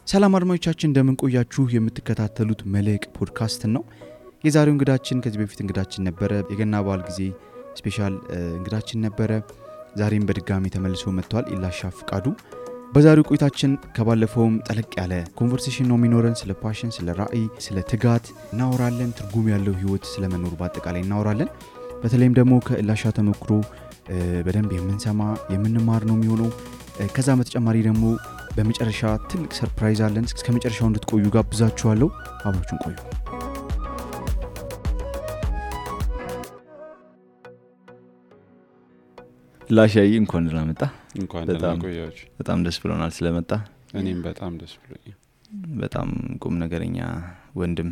ሰላም አድማጮቻችን እንደምን ቆያችሁ? የምትከታተሉት መልሕቅ ፖድካስት ነው። የዛሬው እንግዳችን ከዚህ በፊት እንግዳችን ነበረ። የገና በዓል ጊዜ ስፔሻል እንግዳችን ነበረ። ዛሬም በድጋሚ ተመልሶ መጥቷል። ኢላሻ ፍቃዱ። በዛሬው ቆይታችን ከባለፈውም ጠለቅ ያለ ኮንቨርሴሽን ነው የሚኖረን። ስለ ፓሽን፣ ስለ ራዕይ፣ ስለ ትጋት እናወራለን። ትርጉም ያለው ህይወት ስለመኖር በአጠቃላይ እናወራለን። በተለይም ደግሞ ከኢላሻ ተሞክሮ በደንብ የምንሰማ የምንማር ነው የሚሆነው። ከዛ በተጨማሪ ደግሞ በመጨረሻ ትልቅ ሰርፕራይዝ አለን። እስከ መጨረሻው እንድትቆዩ ጋብዛችኋለሁ። አብራችሁን ቆዩ። ላሻይ እንኳን ደህና መጣ። እንኳን ደህና ቆያችሁ። በጣም ደስ ብሎናል ስለመጣ። እኔም በጣም ደስ ብሎኛል። በጣም ቁም ነገረኛ ወንድም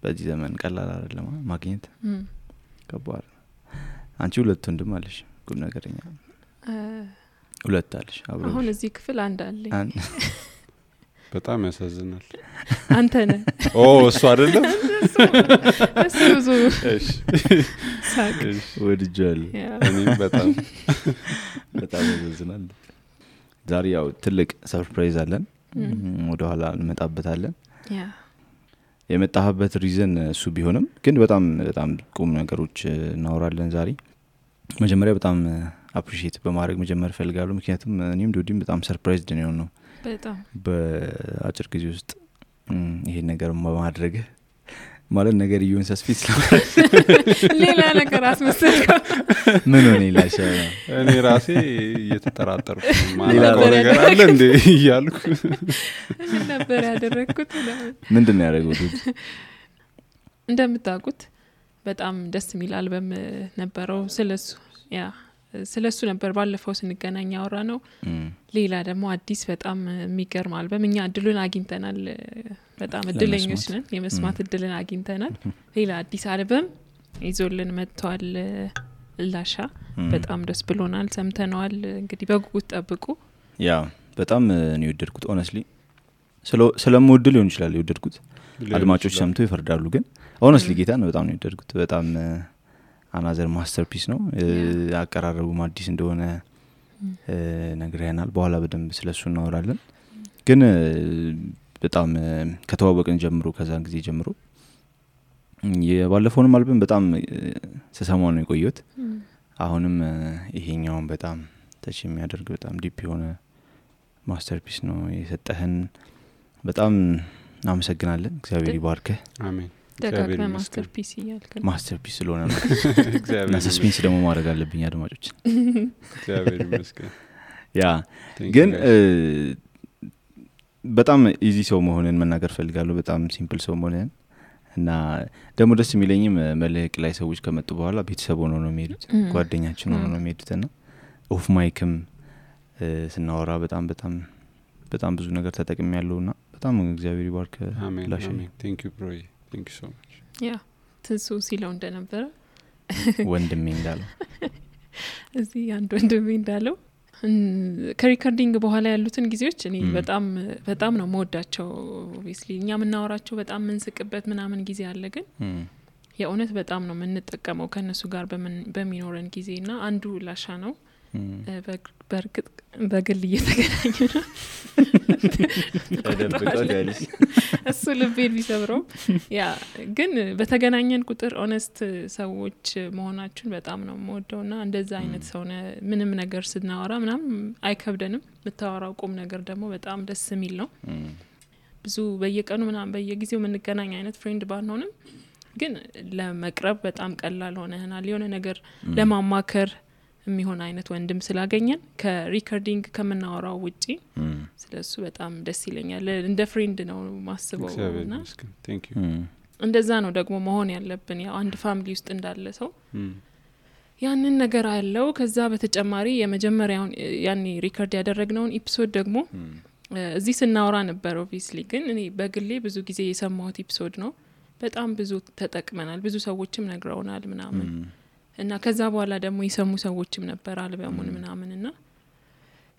በዚህ ዘመን ቀላል አይደለም ማግኘት። ከባድ። አንቺ ሁለት ወንድም አለሽ ቁም ነገረኛ? ሁለት አለሽ አብሮ። አሁን እዚህ ክፍል አንድ አለኝ። በጣም ያሳዝናል። አንተ ነህ። እሱ አይደለም። እሱ እሺ ሳቅ ወድጃለሁ። እኔም በጣም ያሳዝናል። ዛሬ ያው ትልቅ ሰርፕራይዝ አለን። ወደ ኋላ እንመጣበታለን። የመጣህበት ሪዝን እሱ ቢሆንም ግን በጣም ቁም ነገሮች እናወራለን ዛሬ። መጀመሪያ በጣም አፕሪሺየት በማድረግ መጀመር ፈልጋለሁ። ምክንያቱም እኔም ዶዲም በጣም ሰርፕራይዝድ ነው በጣም በአጭር ጊዜ ውስጥ ይሄን ነገር በማድረግ ማለት ነገር ይሁን ሰስፊት ስለማድረግ ሌላ ነገር አስመሰልከው። ምን ሆነ ይላሻ? እኔ ራሴ እየተጠራጠርኩ ማለት ነገር አለ እንዴ እያልኩ ነበር ያደረኩት። ምንድነው ያደረጉት? እንደምታውቁት በጣም ደስ የሚል አልበም ነበረው። ስለሱ ነበር ባለፈው ስንገናኝ ያወራ ነው። ሌላ ደግሞ አዲስ በጣም የሚገርም አልበም እኛ እድሉን አግኝተናል። በጣም እድለኞች ነን፣ የመስማት እድልን አግኝተናል። ሌላ አዲስ አልበም ይዞልን መጥቷል ኢላሻ። በጣም ደስ ብሎናል፣ ሰምተነዋል። እንግዲህ በጉጉት ጠብቁ። ያ በጣም ነው የወደድኩት። ሆነስሊ ስለምወድ ሊሆን ይችላል የወደድኩት። አድማጮች ሰምተው ይፈርዳሉ። ግን ሆነስሊ ጌታን በጣም ነው የወደድኩት። በጣም አናዘር ማስተርፒስ ነው። አቀራረቡም አዲስ እንደሆነ ነግረናል። በኋላ በደንብ ስለሱ እናወራለን። ግን በጣም ከተዋወቅን ጀምሮ ከዛን ጊዜ ጀምሮ የባለፈውንም አልበም በጣም ተሰማው ነው የቆየሁት። አሁንም ይሄኛውን በጣም ተች የሚያደርግ በጣም ዲፕ የሆነ ማስተርፒስ ነው የሰጠህን። በጣም እናመሰግናለን። እግዚአብሔር ይባርክህ። አሜን። ደጋግመህ ማስተርፒስ እያልከኝ ማስተርፒስ ስለሆነ ነው። እግዚአብሔር ሰስፔንስ ደግሞ ማድረግ አለብኝ አድማጮች። እግዚአብሔር ይመስገን። ያ ግን በጣም ኢዚ ሰው መሆንን መናገር ፈልጋለሁ። በጣም ሲምፕል ሰው መሆንን እና ደግሞ ደስ የሚለኝም መልሕቅ ላይ ሰዎች ከመጡ በኋላ ቤተሰብ ሆነው ነው የሚሄዱት፣ ጓደኛችን ሆነው ነው የሚሄዱትና ኦፍ ማይክም ስናወራ በጣም ብዙ ነገር ተጠቅሜያለሁና በጣም እግዚአብሔር ይባርክ። አሜን አሜን። ቴንክ ዩ ብሮ። ቴንክ ዩ ሶ ማች። ያ ትንሱ ሲለው እንደነበረ ወንድሜ እንዳለው እዚህ አንድ ወንድሜ እንዳለው ከሪከርዲንግ በኋላ ያሉትን ጊዜዎች እኔ በጣም ነው መወዳቸው። ኦብቪስሊ እኛ ምናወራቸው በጣም ምንስቅበት ምናምን ጊዜ አለ። ግን የእውነት በጣም ነው የምንጠቀመው ከነሱ ጋር በሚኖረን ጊዜና አንዱ ኢላሻ ነው። በርግጥ በግል እየተገናኙ ነው እሱ ልቤን ቢሰብረው። ያ ግን በተገናኘን ቁጥር ኦነስት ሰዎች መሆናችሁን በጣም ነው የምወደውና እንደዛ አይነት ሰው ምንም ነገር ስናወራ ምናምን አይከብደንም። ብታወራው ቁም ነገር ደግሞ በጣም ደስ የሚል ነው። ብዙ በየቀኑ ምናምን በየጊዜው የምንገናኝ አይነት ፍሬንድ ባንሆንም ግን ለመቅረብ በጣም ቀላል ሆነናል። የሆነ ነገር ለማማከር የሚሆን አይነት ወንድም ስላገኘን ከሪከርዲንግ ከምናወራው ውጪ ስለሱ በጣም ደስ ይለኛል። እንደ ፍሬንድ ነው ማስበውና ቴንክ ዩ። እንደዛ ነው ደግሞ መሆን ያለብን። ያው አንድ ፋሚሊ ውስጥ እንዳለ ሰው ያንን ነገር አለው። ከዛ በተጨማሪ የመጀመሪያውን ያኔ ሪከርድ ያደረግነውን ኤፒሶድ ደግሞ እዚህ ስናወራ ነበር ኦብቪስሊ። ግን እኔ በግሌ ብዙ ጊዜ የሰማሁት ኤፒሶድ ነው። በጣም ብዙ ተጠቅመናል፣ ብዙ ሰዎችም ነግረውናል ምናምን እና ከዛ በኋላ ደግሞ የሰሙ ሰዎችም ነበር አልበሙን ምናምንና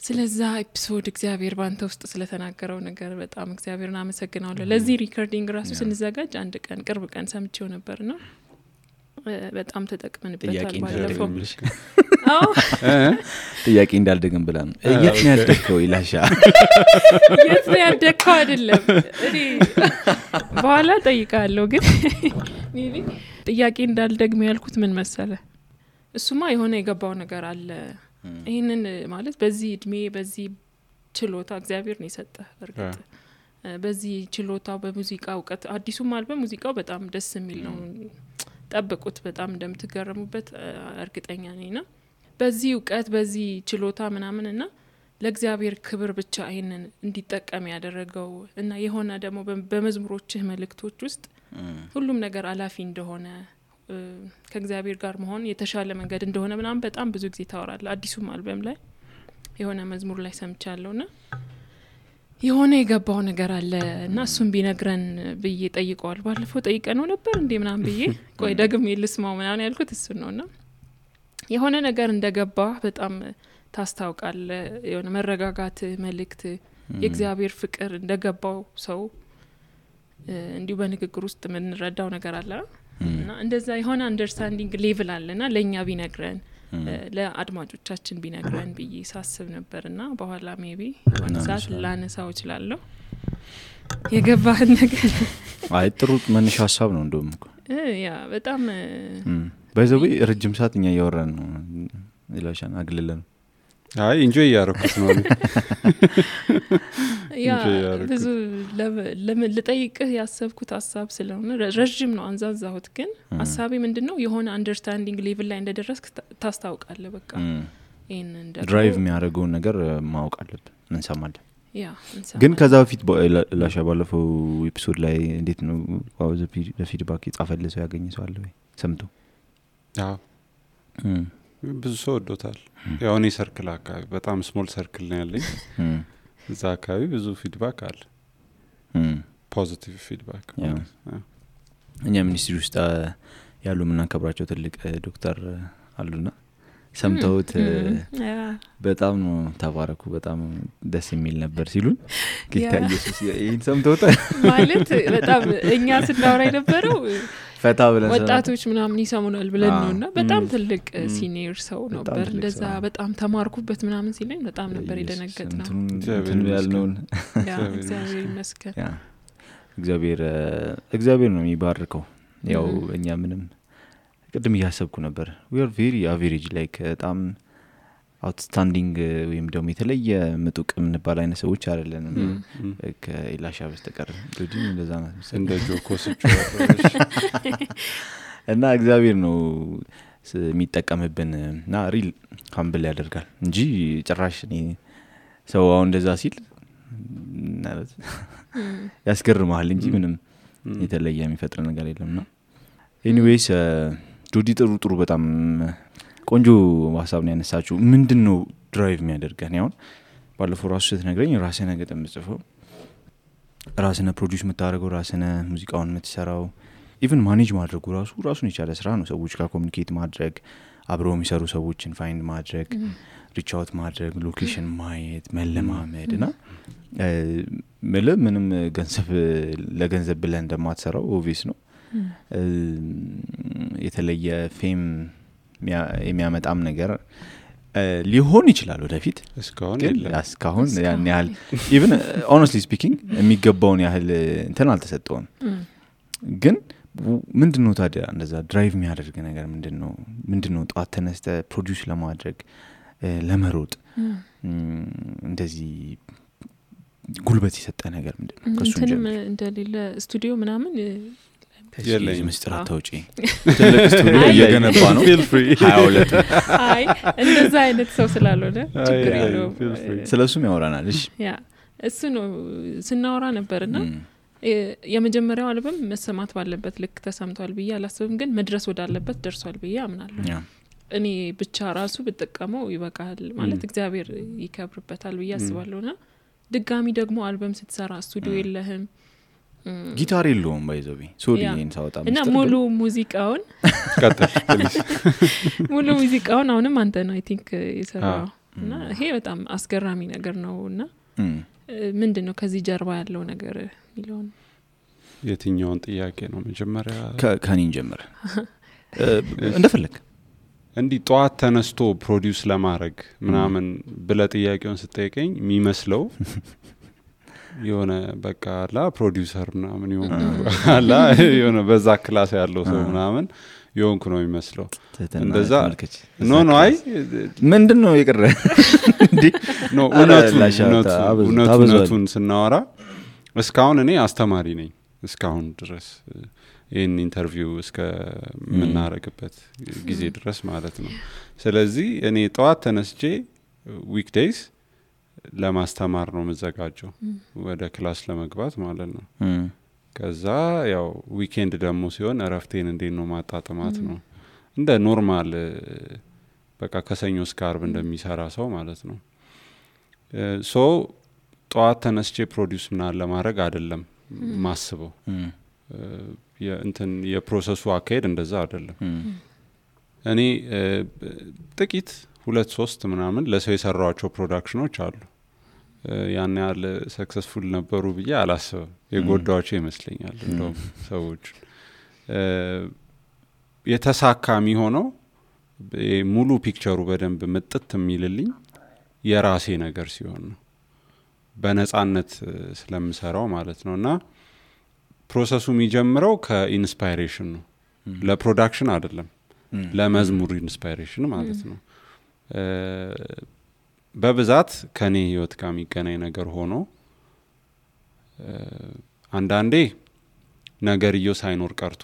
ስለዛ ኤፒሶድ እግዚአብሔር ባንተ ውስጥ ስለተናገረው ነገር በጣም እግዚአብሔርን አመሰግናለሁ። ለዚህ ሪከርዲንግ ራሱ ስንዘጋጅ አንድ ቀን ቅርብ ቀን ሰምቼው ነበርና በጣም ተጠቅመንበታል ባለፈው ጥያቄ እንዳልደግም ብላ ነው የት ነው ያደከው ኢላሻ የት ነው ያደከው አይደለም እኔ በኋላ ጠይቃለሁ ግን ሜቢ ጥያቄ እንዳልደግም ያልኩት ምን መሰለ እሱማ የሆነ የገባው ነገር አለ ይሄንን ማለት በዚህ እድሜ በዚህ ችሎታ እግዚአብሔር ነው የሰጠህ በርግጥ በዚህ ችሎታው በሙዚቃ እውቀት አዲሱም አልበም ሙዚቃው በጣም ደስ የሚል ነው ጠብቁት በጣም እንደምትገረሙበት እርግጠኛ ነኝና በዚህ እውቀት በዚህ ችሎታ ምናምንና ለእግዚአብሔር ክብር ብቻ ይሄንን እንዲጠቀም ያደረገው እና የሆነ ደግሞ በመዝሙሮችህ መልእክቶች ውስጥ ሁሉም ነገር አላፊ እንደሆነ ከእግዚአብሔር ጋር መሆን የተሻለ መንገድ እንደሆነ ምናምን በጣም ብዙ ጊዜ ታወራለህ አዲሱም አልበም ላይ የሆነ መዝሙር ላይ ሰምቻለሁና የሆነ የገባው ነገር አለ እና እሱም ቢነግረን ብዬ ጠይቀዋል ባለፈው ጠይቀነው ነበር እንዴ ምናምን ብዬ ቆይ ደግሜ ልስማው ምናምን ያልኩት እሱ ነውና የሆነ ነገር እንደገባ በጣም ታስታውቃል የሆነ መረጋጋት መልእክት የእግዚአብሔር ፍቅር እንደገባው ሰው እንዲሁ በንግግር ውስጥ ምን ረዳው ነገር አለ እና እንደዛ የሆነ አንደርስታንዲንግ ሌቭል አለና ለኛ ቢነግረን ለአድማጮቻችን ቢነግረን ብዬ ሳስብ ነበርና በኋላ ሜቢ ወንሳት ላነሳው እችላለሁ የገባህ ነገር አይ ጥሩ መነሻ ሐሳብ ነው እንደውም ያ በጣም በዘው ረጅም ሰዓት እኛ ያወራን ነው ኢላሻን አግልለን አይ ኢንጆይ ያረኩት ነው ያ ብዙ ለጠይቅህ ያሰብኩት ሐሳብ ስለሆነ ረጅም ነው አንዛዛሁት ግን ሐሳቤ ምንድነው የሆነ አንደርስታንዲንግ ሌቭል ላይ እንደደረስክ ታስታውቃለህ በቃ ይሄን እንደ ድራይቭ የሚያደርገው ነገር ማወቅ አለብን እንሰማለን ያ ግን ከዛ በፊት ላሻ ባለፈው ኤፒሶድ ላይ እንዴት ነው ዋው ለፊድባክ ይጻፈልሰው ያገኘሰው አለ ወይ ሰምቶ አዎ ብዙ ሰው ወዶታል ያው እኔ ሰርክል አካባቢ በጣም ስሞል ሰርክል ነው ያለኝ እዛ አካባቢ ብዙ ፊድባክ አለ ፖዚቲቭ ፊድባክ እኛ ሚኒስትሪ ውስጥ ያሉ ምናከብራቸው ትልቅ ዶክተር አሉና ሰምተውት በጣም ነው ተባረኩ በጣም ደስ የሚል ነበር ሲሉን ጌታ ኢየሱስ ይሄን ሰምተውት ማለት በጣም እኛ ስናወራ የነበረው ፈታ ብለን ወጣቶች ምናምን ይሰሙናል ብለን ነውና በጣም ትልቅ ሲኒየር ሰው ነበር እንደዛ በጣም ተማርኩበት ምናምን ሲለኝ በጣም ነበር የደነገጥነው እንትን ያልነውን ያ እግዚአብሔር ይመስገን ያ እግዚአብሔር ነው የሚባርከው ያው እኛ ምንም ቅድም ያሰብኩ ነበር we are very average like በጣም outstanding ወይም ደግሞ የተለየ ምጡቅ ምንባል አይነት ሰዎች አይደለንም ከኢላሻ በስተቀር እንግዲህ እንደዛ ነው እንደ ጆኮስቹ እና እግዚአብሔር ነው የሚጠቀምብን እና ሪል ካምብል ያደርጋል እንጂ ጭራሽ እኔ ሰው አሁን እንደዛ ሲል ማለት ያስገርማል እንጂ ምንም የተለየ የሚፈጥር ነገር የለምና ኤኒዌይስ ጆዲ ጥሩ በጣም ቆንጆ ሐሳብ ነው ያነሳችሁ ምንድነው ድራይቭ የሚያደርገን ያው ባለፈው ራሱ ስትነግረኝ ራስህ ነገ ተምጽፈው ራስህ ፕሮዲዩስ የምታደርገው ራስህ ሙዚቃውን የምትሰራው ኢቭን ማኔጅ ማድረጉ ራሱን የቻለ ስራ ነው ሰዎች ጋር ኮሙኒኬት ማድረግ አብረው የሚሰሩ ሰዎችን ፋይንድ ማድረግ ሪች አውት ማድረግ ሎኬሽን ማየት መለማመድና ምንም ለገንዘብ ብለን እንደማትሰራው ኦብቪየስ ነው የተለየ ፌም የሚያመጣም ነገር ሊሆን ይችላል ወደፊት እስካሁን ያን ያህል ኢቭን honestly speaking የሚገባውን ያህል እንትን አልተሰጠውም ግን ምንድነው ታዲያ እንደዛ ድራይቭ የሚያደርግ ነገር ምንድነው ጧት ተነስተ ፕሮዲዩስ ለማድረግ ለመሮጥ እንደዚህ ጉልበት የሰጠ ነገር ምንድነው ከሱ እንደሌለ ስቱዲዮ ምናምን የለኝ ምስጥር አታውጪ ትልቅ ስቱዲዮ እየገነባ ነው feel free 22 አይ እንደዛ አይነት ሰው ስላልሆነ ችግር የለውም ስለሱም ያወራናል እሺ ያ እሱ ነው ስናወራ ነበርና የመጀመሪያው አልበም መሰማት ባለበት ልክ ተሰምቷል ብዬ አላስብም ግን መድረስ ወዳለበት ደርሷል ብዬ አምናለሁ እኔ ብቻ ራሱ ብጠቀመው ይበቃል ማለት እግዚአብሔር ይከብርበታል ብዬ አስባለሁና ድጋሚ ደግሞ አልበም ስትሰራ ስቱዲዮ የለህም ጊታር የለውም ባይዘው ሶዲን ሳውጣ እና ሙሉ ሙዚቃውን አሁንም አንተ ነው አይ ቲንክ የሰራው እና ይሄ በጣም አስገራሚ ነገር ነውና ምንድነው ከዚህ ጀርባ ያለው ነገር ሚሊዮን የትኛውን ጥያቄ ነው መጀመሪያ ከኔን ጀምር እንደፈለግ እንዲህ ጠዋት ተነስቶ ፕሮዲውስ ለማድረግ ምናምን ብለ ጥያቄውን ስጠይቀኝ የሚመስለው የሆነ በቃ አላ ፕሮዲውሰር ምናምን አላ የሆነ በዛ ክላስ ያለው ሰው ምናምን የሆንኩ ነው የሚመስለው። እንደዛ ኖ አይ ምንድነው የቀረ እንዴ? ኖ እውነቱን ስናወራ እስካሁን እኔ አስተማሪ ነኝ እስካሁን ድረስ ይህን ኢንተርቪው እስከ ምናረግበት ጊዜ ድረስ ማለት ነው። ስለዚህ እኔ ጠዋት ተነስቼ ዊክዴይስ ለማስተማር ነው መዘጋጀው ወደ ክላስ ለመግባት ማለት ነው። ከዛ ያው ዊኬንድ ደግሞ ሲሆን እረፍቴን እንዴት ነው ማጣጣማት ነው እንደ ኖርማል በቃ ከሰኞ እስከ አርብ እንደሚሰራ ሰው ማለት ነው። ሶ ጠዋት ተነስቼ ፕሮዲውስ ምናምን ለማድረግ አይደለም ማስበው። እንትን የፕሮሰሱ አካሄድ እንደዛ አይደለም። እኔ ጥቂት 2-3 ምናምን ለሰው የሰራዋቸው ፕሮዳክሽኖች አሉ። ያን ያህል ሰክሰስፉል ነበሩ ብዬ አላስብም። የጎዳዋቸው ይመስለኛል እንደውም ሰዎች የተሳካ የሚሆነው ሙሉ ፒክቸሩ በደንብ ምጥት የሚልልኝ የራሴ ነገር ሲሆን ነው በነጻነት ስለምሰራው ማለት ነውና ፕሮሰሱ የሚጀምረው ከኢንስፓይሬሽን ነው። ለፕሮዳክሽን አይደለም ለመዝሙር ኢንስፓይሬሽን ማለት ነው። በብዛት ከኔ ህይወት ጋር የሚገናኝ ነገር ሆኖ አንዳንዴ ነገርየው ሳይኖር ቀርቶ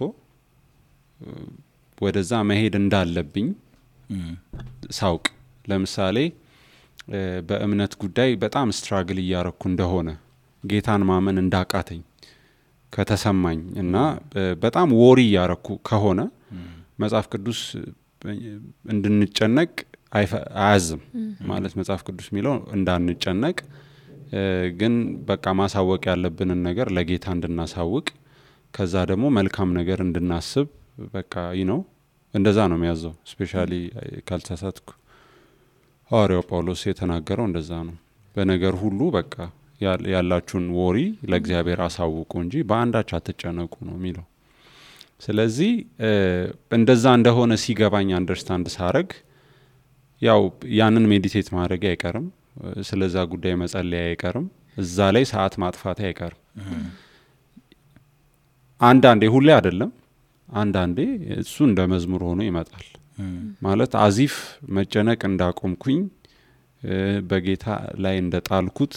ወደዛ መሄድ እንዳለብኝ ሳውቅ ለምሳሌ በእምነት ጉዳይ በጣም ስትራግል እያረኩ እንደሆነ ጌታን ማመን እንዳቃተኝ ከተሰማኝ እና በጣም ወሪ ያረኩ ከሆነ መጽሐፍ ቅዱስ እንድንጨነቅ አያዝም ማለት መጽሐፍ ቅዱስ የሚለው እንዳንጨነቅ ግን በቃ ማሳወቅ ያለብንን ነገር ለጌታ እንድናሳውቅ ከዛ ደግሞ መልካም ነገር እንድናስብ በቃ እንደዛ ነው የሚያዘው። ስፔሻሊ ካልተሳሳትኩ ሐዋርያው ጳውሎስ የተናገረው እንደዛ ነው። በነገር ሁሉ በቃ ያላችሁን ወሪ ለእግዚአብሔር አሳውቁ እንጂ በአንዳች አትጨነቁ ነው የሚለው። ስለዚህ እንደዛ እንደሆነ ሲገባኝ አንደርስታንድ ሳረግ ያው ያንን ሜዲቴት ማድረግ አይቀርም፣ ስለዛ ጉዳይ መጸለይ አይቀርም፣ እዛ ላይ ሰዓት ማጥፋት አይቀርም። አንዳንዴ ሁሌ አይደለም፣ አንዳንዴ እሱ እንደ መዝሙር ሆኖ ይመጣል። ማለት አዚፍ መጨነቅ እንዳቆምኩኝ በጌታ ላይ እንደጣልኩት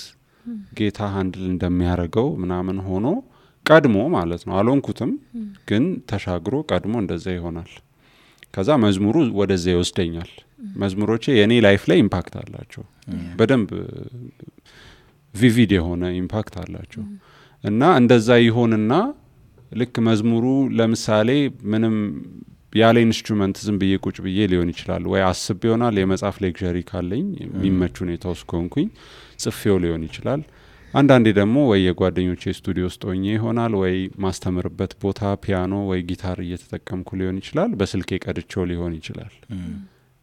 ጌታ ሃንድል እንደሚያረገው ምናምን ሆኖ ቀድሞ ማለት ነው። አልሆንኩትም ግን ተሻግሮ ቀድሞ እንደዛ ይሆናል። ከዛ መዝሙሩ ወደዛ ይወስደኛል። መዝሙሮቼ የኔ ላይፍ ላይ ኢምፓክት አላቸው፣ በደንብ ቪቪድ የሆነ ኢምፓክት አላቸው። እና እንደዛ ይሆንና ልክ መዝሙሩ ለምሳሌ ምንም ያለ ኢንስትሩመንት ዝም ብዬ ቁጭ ብዬ ሊሆን ይችላል፣ ወይ አስብ ይሆናል የመጽሐፍ ሌክቸሪ ካለኝ የሚመቹ ሁኔታ ውስጥ ከሆንኩኝ ጽፌው ሊሆን ይችላል። አንዳንዴ ደግሞ ወይ የጓደኞቼ ስቱዲዮ ውስጥ ሆኜ ይሆናል፣ ወይ ማስተምርበት ቦታ ፒያኖ ወይ ጊታር እየተጠቀምኩ ሊሆን ይችላል፣ በስልኬ ቀድቼው ሊሆን ይችላል።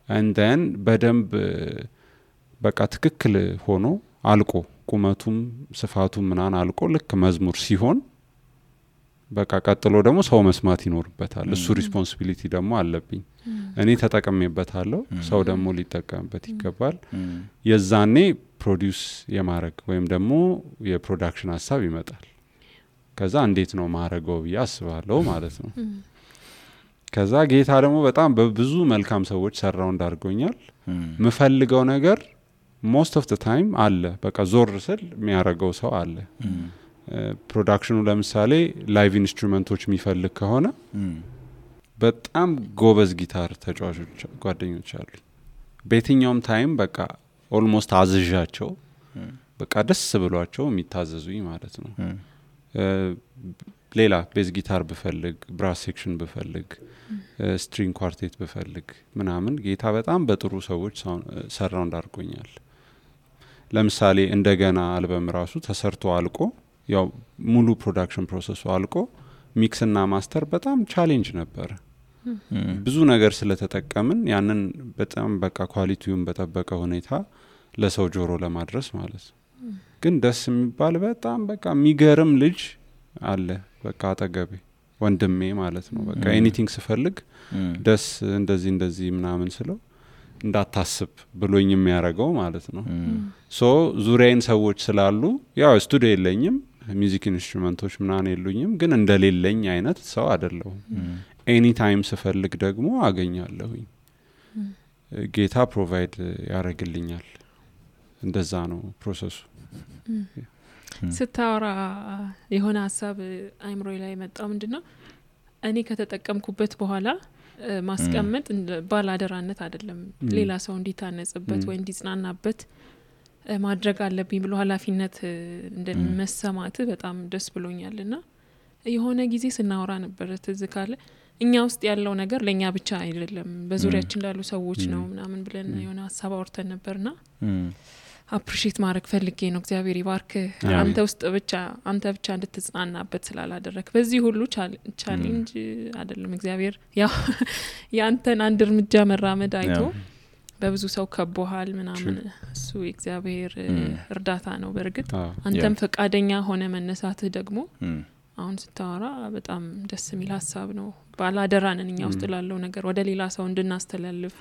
and then በደንብ በቃ ትክክል ሆኖ አልቆ ቁመቱም ስፋቱም ምናን አልቆ ልክ መዝሙር ሲሆን በቃ ቀጥሎ ደግሞ ሰው መስማት ይኖርበታል። እሱ ሪስፖንሲቢሊቲ ደግሞ አለብኝ። እኔ ተጠቅሜበታለሁ፣ ሰው ደግሞ ሊጠቀምበት ይገባል። የዛኔ ፕሮዲውስ የማድረግ ወይም ደግሞ የፕሮዳክሽን ሀሳብ ይመጣል። ከዛ እንዴት ነው ማረገው ብዬ አስባለሁ ማለት ነው። ከዛ ጌታ ደግሞ በጣም በብዙ መልካም ሰዎች ሰራው እንዳርጎኛል። ምፈልገው ነገር most of the time አለ። በቃ ዞር ስል የሚያረገው ሰው አለ። ፕሮዳክሽኑ ለምሳሌ ላይቭ ኢንስትሩመንቶች የሚፈልግ ከሆነ በጣም ጎበዝ ጊታር ተጫዋቾች ጓደኞች አሉ። በየትኛውም ታይም በቃ ኦልሞስት አዝዣቸው በቃ ደስ ብሏቸው የሚታዘዙኝ ማለት ነው። ሌላ ቤዝ ጊታር ብፈልግ፣ ብራስ ሴክሽን ብፈልግ፣ ስትሪንግ ኳርቴት ብፈልግ ምናምን ጌታ በጣም በጥሩ ሰዎች ሰራው እንዳርጎኛል። ለምሳሌ እንደገና አልበም ራሱ ተሰርቶ አልቆ ያው ሙሉ ፕሮዳክሽን ፕሮሰሱ አልቆ ሚክስ እና ማስተር በጣም ቻሌንጅ ነበር። ብዙ ነገር ስለተጠቀምን ያንን በጣም በቃ ኳሊቲውን በጠበቀ ሁኔታ ለሰው ጆሮ ለማድረስ ማለት ነው። ግን ደስ የሚባል በጣም በቃ የሚገርም ልጅ አለ በቃ አጠገቤ ወንድሜ ማለት ነው በቃ ኤኒቲንግ ስፈልግ ደስ እንደዚህ ምናምን ስለው እንዳታስብ ብሎኝ የሚያረጋው ማለት ነው ሶ ዙሪያዬን ሰዎች ስላሉ ያው ስቱዲዮ የለኝም ሚውዚክ ኢንስትሩመንቶች ምናምን የሉኝም ግን እንደሌለኝ አይነት ሰው አይደለሁም ኤኒ ታይም ስፈልግ ደግሞ አገኛለሁኝ ጌታ ፕሮቫይድ ያረግልኛል እንደዛ ነው ፕሮሰሱ ስታወራ የሆነ ሐሳብ አይምሮይ ላይ መጣው ምንድነው እኔ ከተጠቀምኩበት በኋላ ማስቀመጥ ባላደራነት አይደለም ሌላ ሰው እንዲታነጽበት ወይ እንዲጽናናበት ማድረግ አለብኝ ብሎ ኃላፊነት እንደመሰማት በጣም ደስ ብሎኛልና የሆነ ጊዜ ስናወራ ነበር ትዝ ካለ እኛ ውስጥ ያለው ነገር ለኛ ብቻ አይደለም በዙሪያችን ላሉ ሰዎች ነው ምናምን ብለን የሆነ ሐሳብ አውርተን ነበርና አፕሪሺየት ማድረግ ፈልጌ ነው እግዚአብሔር ይባርክ አንተ ውስጥ ብቻ አንተ ብቻ እንድትጽናናበት ስላላደረክ በዚህ ሁሉ ቻሌንጅ አይደለም እግዚአብሔር ያው ያንተን አንድ እርምጃ መራመድ አይቶ በብዙ ሰው ከቦሃል ምናምን እሱ እግዚአብሔር እርዳታ ነው በርግጥ አንተም ፈቃደኛ ሆነ መነሳትህ ደግሞ አሁን ስታወራ በጣም ደስ የሚል ሐሳብ ነው ባላደራነን እኛ ውስጥ ላለው ነገር ወደ ሌላ ሰው እንድናስተላልፍ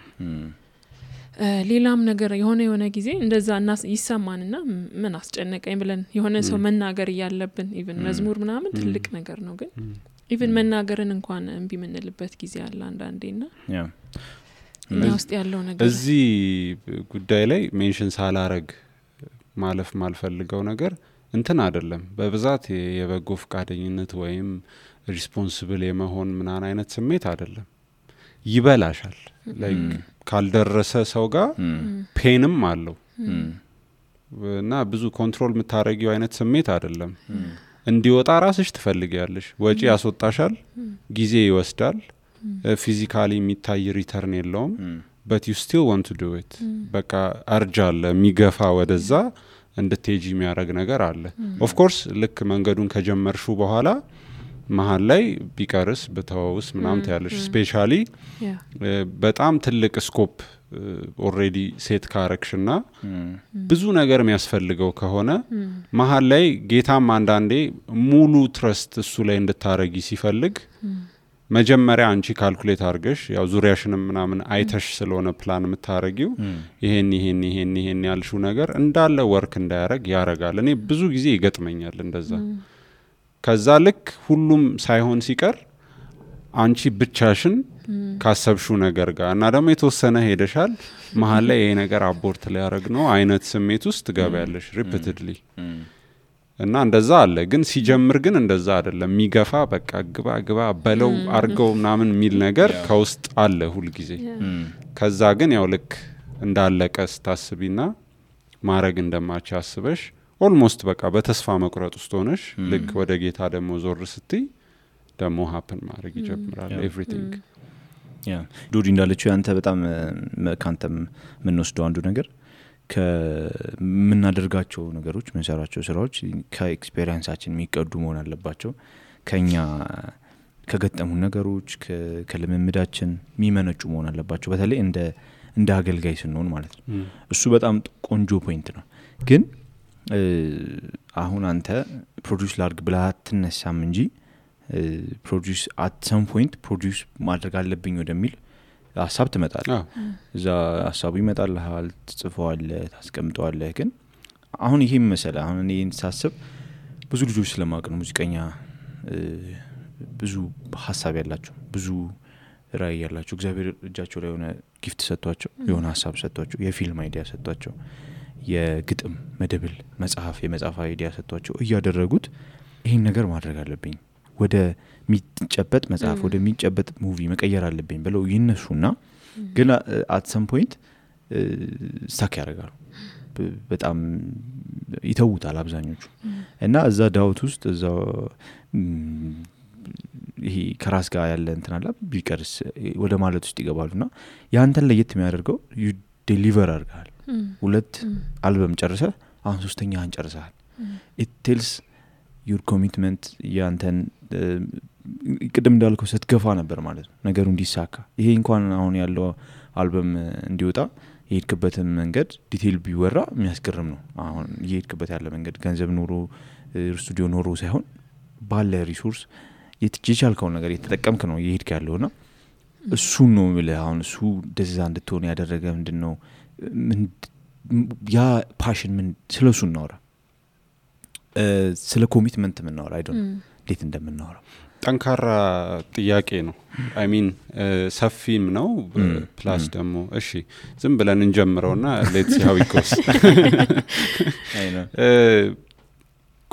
ሌላም ነገር የሆነ ጊዜ እንደዛ ይሰማንና ምን አስጨነቀኝ ብለን የሆነ ሰው መናገር ያለብን ኢቭን መዝሙር ምናምን ትልቅ ነገር ነው ግን ኢቭን መናገርን እንኳን እንቢ ምንልበት ጊዜ አለ አንዳንዴና እኛ ውስጥ ያለው ነገር እዚህ ጉዳይ ላይ ሜንሽን ሳላረግ ማለፍ ማልፈልገው ነገር እንትን አይደለም በብዛት የበጎ ፍቃደኝነት ወይም ሪስፖንሲብል የመሆን ምናን አይነት ስሜት አይደለም ይበላሻል ላይክ ካልደረሰ ሰው ጋር ፔንም አለው እና ብዙ ኮንትሮል የምታረጊው አይነት ስሜት አይደለም እንዲወጣ ራስሽ ትፈልጊያለሽ ወጪ ያስወጣሻል ጊዜ ይወስዳል ፊዚካሊ የሚታይ ሪተርን የለውም but you still want to do it በቃ አርጃለ የሚገፋ ወደዛ እንድትሄጂ የሚያረግ ነገር አለ of course ልክ መንገዱን ከጀመርሹ በኋላ መሃል ላይ ቢቀርስ በተዋውስ ምናምን ታያለሽ ስፔሻሊ በጣም ትልቅ ስኮፕ ኦሬዲ ሴት ካረክሽና ብዙ ነገር የሚያስፈልገው ከሆነ መሃል ላይ ጌታም አንዳንዴ ሙሉ ትረስት እሱ ላይ እንድታረጊ ሲፈልግ መጀመሪያ አንቺ ካልኩሌት አርገሽ ያው ዙሪያሽንም ምናምን አይተሽ ስለሆነ ፕላን የምታረጊው ይሄን ያልሹ ነገር እንዳለ ወርክ እንዳያረግ ያረጋል እኔ ብዙ ጊዜ ይገጥመኛል እንደዛ ከዛ ልክ ሁሉም ሳይሆን ሲቀር አንቺ ብቻሽን ካሰብሹ ነገር ጋር እና ደግሞ የተወሰነ ሄደሻል መሃል ላይ ይሄ ነገር አቦርት ላይ ያረግ ነው አይነት ስሜት ውስጥ ገባያለሽ ሪፒትድሊ እና እንደዛ አለ ግን ሲጀምር ግን እንደዛ አይደለም ሚገፋ በቃ ግባ በለው አርገው ምናምን ሚል ነገር ከውስጥ አለ ሁሉ ጊዜ ከዛ ግን ያው ልክ እንዳለቀ ስታስቢና ማረግ እንደማች አስበሽ ኦልሞስት በቃ በተስፋ መቁረጥ ውስጥ ሆነሽ ልክ ወደ ጌታ ደግሞ ዞር ስትይ ደግሞ ሃፕን ማድረግ ይጀምራል ኤቭሪቲንግ ዱዲ እንዳለችው ያንተ በጣም ካንተም ምንወስደው አንዱ ነገር ከመናደርጋቸው ነገሮች መንሰራቸው ስራዎች ከኤክስፒሪየንሳችን የሚቀዱ መሆን አለባቸው ከኛ ከገጠሙ ነገሮች ከልምምዳችን የሚመነጩ መሆን አለባቸው በተለይ እንደ አገልጋይ ስንሆን ማለት ነው እሱ በጣም ቆንጆ ፖይንት ነው ግን አሁን አንተ ፕሮዲዩስ ላርግ ብለህ አትነሳም እንጂ ፕሮዲዩስ አት ሰም ፖይንት ፕሮዲዩስ ማድረግ አለብኝ ወደሚል ሐሳብ ትመጣለህ እዛ ሐሳቡ ይመጣልሃል ትጽፈዋለህ ታስቀምጠዋለህ ግን አሁን ይሄም መሰለ አሁን እኔ ሳስብ ብዙ ልጆች ስለማቅ ነው ሙዚቀኛ ብዙ ሐሳብ ያላቸው ብዙ ራዕይ ያላቸው እግዚአብሔር እጃቸው ላይ የሆነ ጊፍት ሰጥቷቸው የሆነ ሐሳብ ሰጥቷቸው የፊልም አይዲያ ሰጥቷቸው የግጥም መደብል የመጽሐፍ አይዲያ ሰጥቷቸው እያደረጉት ይሄን ነገር ማድረግ አለብኝ ወደ ሚጨበጥ መጽሐፍ ወደ ሚጨበጥ ሙቪ መቀየር አለብኝ ብለው ይነሱና ግን at some point ስታክ ያደርጋሉ በጣም ይተውታል አብዛኞቹ እና እዛ ዳውት ውስጥ እዛ ይሄ ከራስ ጋር ያለ እንትን አለ ቢቀርስ ወደ ማለት ውስጥ ይገባሉና ያንተን ለየት የሚያደርገው you deliver አድርጋል ሁለት አልበም ጨርሰህ አሁን ሶስተኛን ጨርሰሃል it tells your commitment ያንተን ቅድም እንዳልከው ስትገፋ ነበር ማለት ነው ነገሩ እንዲሳካ ይሄ እንኳን አሁን ያለው አልበም እንዲወጣ የሄድክበትን መንገድ ዲቴል ቢወራ የሚያስገርም ነው አሁን የሄድክበት ያለ መንገድ ገንዘብ ኖሮ ስቱዲዮ ኖሮ ሳይሆን ባለ ሪሶርስ የትችልከው ነገር የተጠቀምክ ነው ይሄድክ ያለውና እሱ ነው የሚለው አሁን እሱ እንደዛ እንድትሆን ያደረገ ምንድነው ያ ፓሽን ምን ስለሱ እናወራ ስለ ኮሚትመንት ምን እናወራ አይዶን እንዴት እንደምናወራ ጠንካራ ጥያቄ ነው አይ ሚን ሰፊም ነው ፕላስ ደግሞ እሺ ዝም ብለን እንጀምረውና ሌትስ ሲ ሃው ኢት ጎስ አይ ነው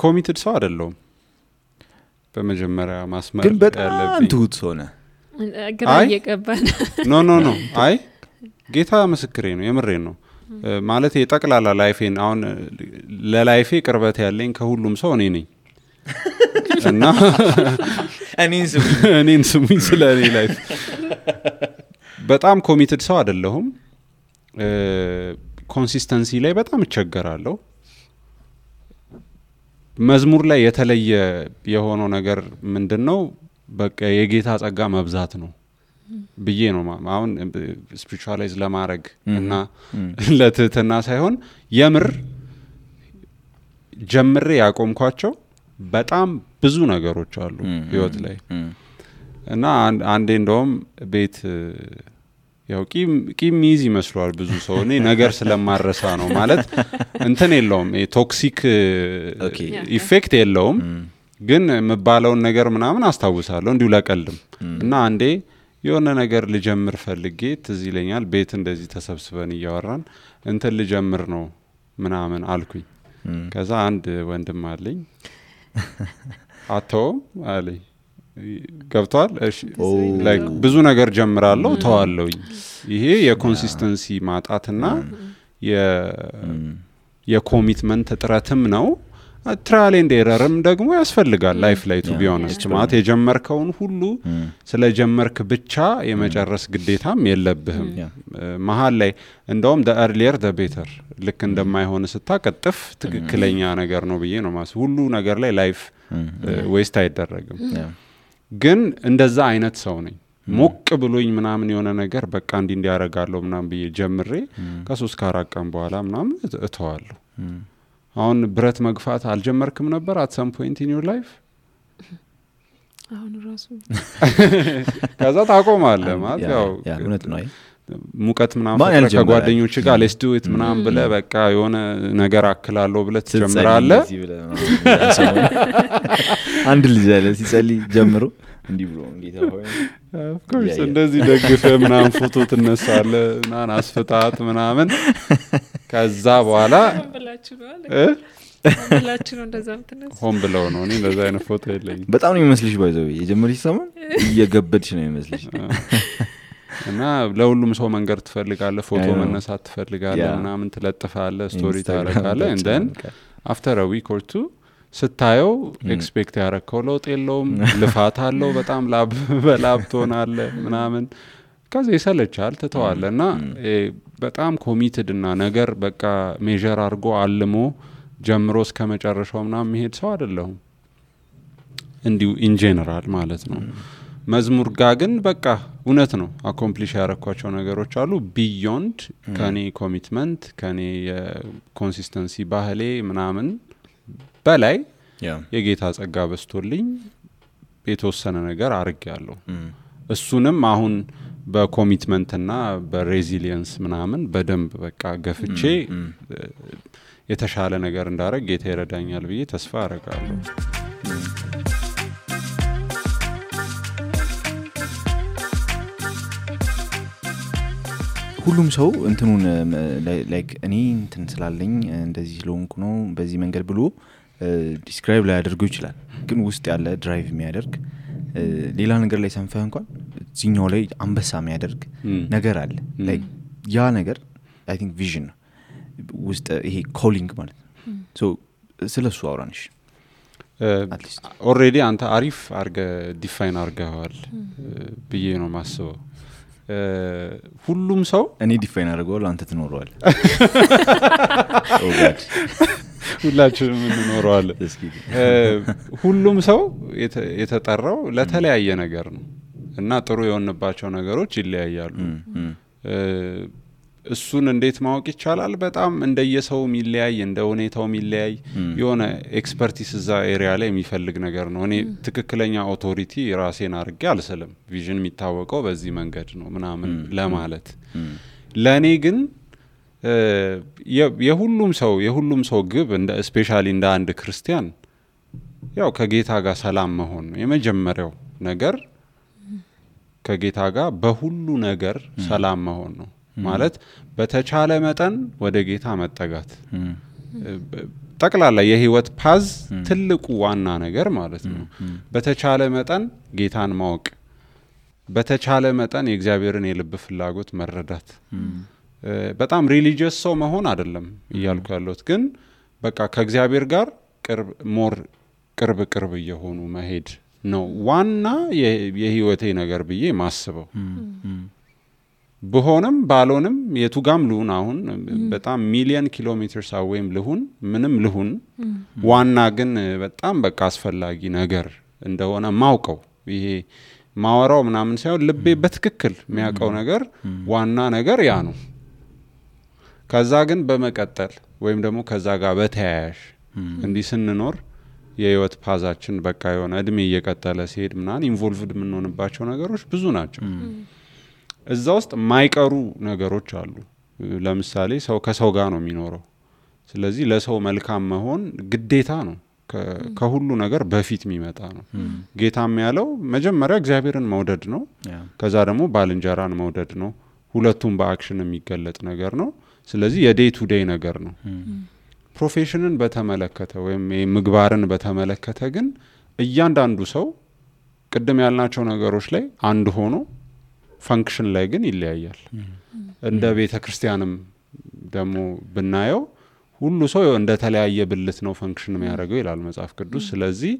ኮሚትድ ሰው አይደለም በመጀመሪያ ማስመር ግን በጣም ትሁት ሆነ ግራ እየገባን ኖ አይ ጌታ ምስክሬ ነው የምሬን ነው ማለት የጠቅላላ ላይፌን አሁን ለላይፌ ቅርበት ያለኝ ከሁሉም ሰው እኔ ነኝ እና እኔን ስሙኝ ስለ እኔ ላይፍ በጣም ኮሚትድ ሰው አይደለሁም ኮንሲስተንሲ ላይ በጣም እቸገራለሁ መዝሙር ላይ የተለየ የሆነው ነገር ምንድነው በቃ የጌታ ጸጋ መብዛት ነው ብዬ ነው አሁን ስፒሪቹዋላይዝ ለማድረግ እና ለትህትና ሳይሆን የምር ጀምሬ ያቆምኳቸው በጣም ብዙ ነገሮች አሉ ህይወት ላይ እና አንዴ እንደውም ቤት ያው ቂም ይዝ ይመስላል ብዙ ሰው እኔ ነገር ስለማረሳ ነው ማለት እንትን የለውም ቶክሲክ ኢፌክት የለውም ግን መባለውን ነገር ምናምን አስታውሳለሁ እንዲሁ ለቀልም እና አንዴ የሆነ ነገር ልጀምር ፈልጌ ትዝ ይለኛል ቤት እንደዚህ ተሰብስበን እያወራን እንትን ልጀምር ነው ምናምን አልኩኝ ከዛ አንድ ወንድም አለኝ አተው አለኝ ገብቷል እሺ ላይክ ብዙ ነገር ጀምራለሁ ተዋለሁኝ ይሄ የኮንሲስተንሲ ማጣትና የኮሚትመንት ጥረትም ነው ትራያል ኤንድ ኤረርም ደግሞ ያስፈልጋል ላይፍ ላይ ቱ ቢ ኦነስት ማለት የጀመርከውን ሁሉ ስለጀመርክ ብቻ የመጨረስ ግዴታም የለብህም መሃል ላይ እንደውም the earlier the better ልክ እንደማይሆን ስታቀጥፍ ትክክለኛ ነገር ነው ብዬ ነው ማለት ሁሉ ነገር ላይ ላይፍ ዌስት አይደረግም ግን እንደዛ አይነት ሰው ነኝ ሞቅ ብሎኝ ምናምን የሆነ ነገር በቃ እንዲያረጋለሁ ምናምን ብዬ ጀምሬ ከ3 4 ቀን በኋላ ምናምን እተዋለሁ አሁን ብረት መግፋት አልጀመርክም ነበር at some point in your life አሁን ራሱ ከዛ ታቆማለህ ማለት ያው እውነት ነው ሙቀት ምናምን ከጓደኞች ጋር let's do it ምናምን ብለ በቃ የሆነ ነገር አክላለሁ ብለ ትጀምራለህ አንድ ልጅ አለ ሲጸልይ ጀምሮ እንዲህ ብሎ ጌታ ሆይ of course እንደዚህ ደግፈ ምናምን ፎቶ ትነሳለህ ምናምን አስፈጣት ምናምን ከዛ በኋላ ብላችሁ ነው እንደዛ ምትነሱ ሆም ብለው ነው እኔ እንደዛ አይነት ፎቶ የለኝም በጣም ነው የሚመስልሽ ባይዘው የጀመርሽ ሰሞን እየገበድሽ ነው የሚመስልሽ እና ለሁሉም ሰው መንገር ትፈልጋለህ ፎቶ መነሳት ትፈልጋለህ ምናምን ትለጥፋለህ ስቶሪ ታረጋለህ and then after a week or two ስታየው ኤክስፔክት ያረከው ለውጥ የለውም ልፋት አለው በጣም ላብ ትሆናለህ ምናምን ከዛ ይሰለቻል ትተዋለና በጣም ኮሚትድ እና ነገር በቃ ሜጀር አድርጎ አልሞ ጀምሮ እስከ መጨረሻው ምናምን መሄድ ሰው አይደለሁም እንዲሁ ኢን ጀነራል ማለት ነው መዝሙር ጋር ግን በቃ እውነት ነው አኮምፕሊሽ ያረኳቸው ነገሮች አሉ ቢዮንድ ከኔ ኮሚትመንት ከኔ የኮንሲስተንሲ ባህሌ ምናምን በላይ የጌታ ጸጋ በስቶልኝ የተወሰነ ነገር አርጋለሁ እሱንም አሁን በኮሚትመንትና በሬዚሊየንስ ምናምን በደንብ በቃ ገፍቼ የተሻለ ነገር እንዳረግ ጌታ ይረዳኛል ብዬ ተስፋ አረጋለሁ ሁሉም ሰው እንትኑን ላይክ እኔ እንትን ስላለኝ እንደዚህ ሎንግ ነው በዚህ መንገድ ብሎ ዲስክራይብ ላይ ያደርገው ይችላል ግን ውስጥ ያለ ድራይቭ የሚያደርግ ሌላ ነገር ላይ ሰንፈህ እንኳን እዚህኛው ላይ አንበሳ የሚያደርግ ነገር አለ ላይክ ያ ነገር አይ ቲንክ ቪዥን ነው ውስጥ ይሄ ኮሊንግ ማለት ነው ሶ ስለሱ አውራንሽ ኦሬዲ አንተ አሪፍ አርገ ዲፋይን አርገዋል ብዬ ነው ማስበው ሁሉም ሰው እኔ ዲፋይን አርገዋል አንተ ትኖረዋል ኦ ጋድ ሁላችንም እንኖረዋለን ሁሉም ሰው የተጠራው ለተለያየ ነገር ነው እና ጥሩ የሆነባቸው ነገሮች ይለያያሉ እሱን እንዴት ማወቅ ይቻላል? በጣም እንደየሰው ሚለያይ እንደ ሁኔታው ሚለያይ የሆነ ኤክስፐርቲስ እዛ ኤሪያ ላይ የሚፈልግ ነገር ነው። እኔ ትክክለኛ ኦቶሪቲ ራሴን አድርጌ አልስልም። ቪዥን የሚታወቀው በዚህ መንገድ ነው ምናምን ለማለት ለኔ ግን የሁሉም ሰው ግብ እንደ ስፔሻሊ እንደ አንድ ክርስቲያን ያው ከጌታ ጋር ሰላም መሆን ነው የመጀመሪያው ነገር። ከጌታ ጋር በሁሉ ነገር ሰላም መሆን ነው ማለት በተቻለ መጠን ወደ ጌታ መጠጋት ጠቅላላ የህይወት ፓዝ ትልቁ ዋና ነገር ማለት ነው። በተቻለ መጠን ጌታን ማወቅ፣ በተቻለ መጠን የእግዚአብሔርን የልብ ፍላጎት መረዳት። በጣም ሪሊጂየስ ሰው መሆን አይደለም እያልኩ ያለሁት፣ ግን በቃ ከእግዚአብሔር ጋር ቅርብ እየሆኑ መሄድ ነው ዋና የህይወቴ ነገር ብዬ ማስበው። በሆነም ባልሆንም የቱጋም ልሁን አሁን በጣም ሚሊየን ኪሎሜትርስ አዌይም ልሁን ምንም ልሁን ዋና ግን በጣም በቃ አስፈላጊ ነገር እንደሆነ ማውቀው ይሄ ማወራው ምናምን ሳይሆን ልቤ በትክክል የሚያውቀው ነገር ዋና ነገር ያ ነው። ከዛ ግን በመቀጠል ወይም ደግሞ ከዛ ጋር በተያያዥ እንዲህ ስንኖር የህይወት ፓዛችን በቃ የሆነ እድሜ እየቀጠለ ሲሄድ ምናምን ኢንቮልቭድ የምንሆንባቸው ነገሮች ብዙ ናቸው። እዛ ውስጥ ማይቀሩ ነገሮች አሉ። ለምሳሌ ሰው ከሰው ጋር ነው የሚኖረው። ስለዚህ ለሰው መልካም መሆን ግዴታ ነው። ከሁሉ ነገር በፊት የሚመጣ ነው። ጌታም ያለው መጀመሪያ እግዚአብሔርን መውደድ ነው። ከዛ ደግሞ ባልንጀራን መውደድ ነው። ሁለቱም በአክሽን የሚገለጥ ነገር ነው። ስለዚህ የዴይ ቱ ዴይ ነገር ነው። ፕሮፌሽንን በተመለከተ ወይም ምግባርን በተመለከተ ግን እያንዳንዱ ሰው ቅድም ያልናቸው ነገሮች ላይ አንድ ሆኖ ፈንክሽን ላይ ግን ይለያያል። እንደ ቤተ ክርስቲያንም ደግሞ ብናየው ሁሉ ሰው እንደ ተለያየ ብልት ነው ፈንክሽን የሚያደርገው ይላል መጽሐፍ ቅዱስ። ስለዚህ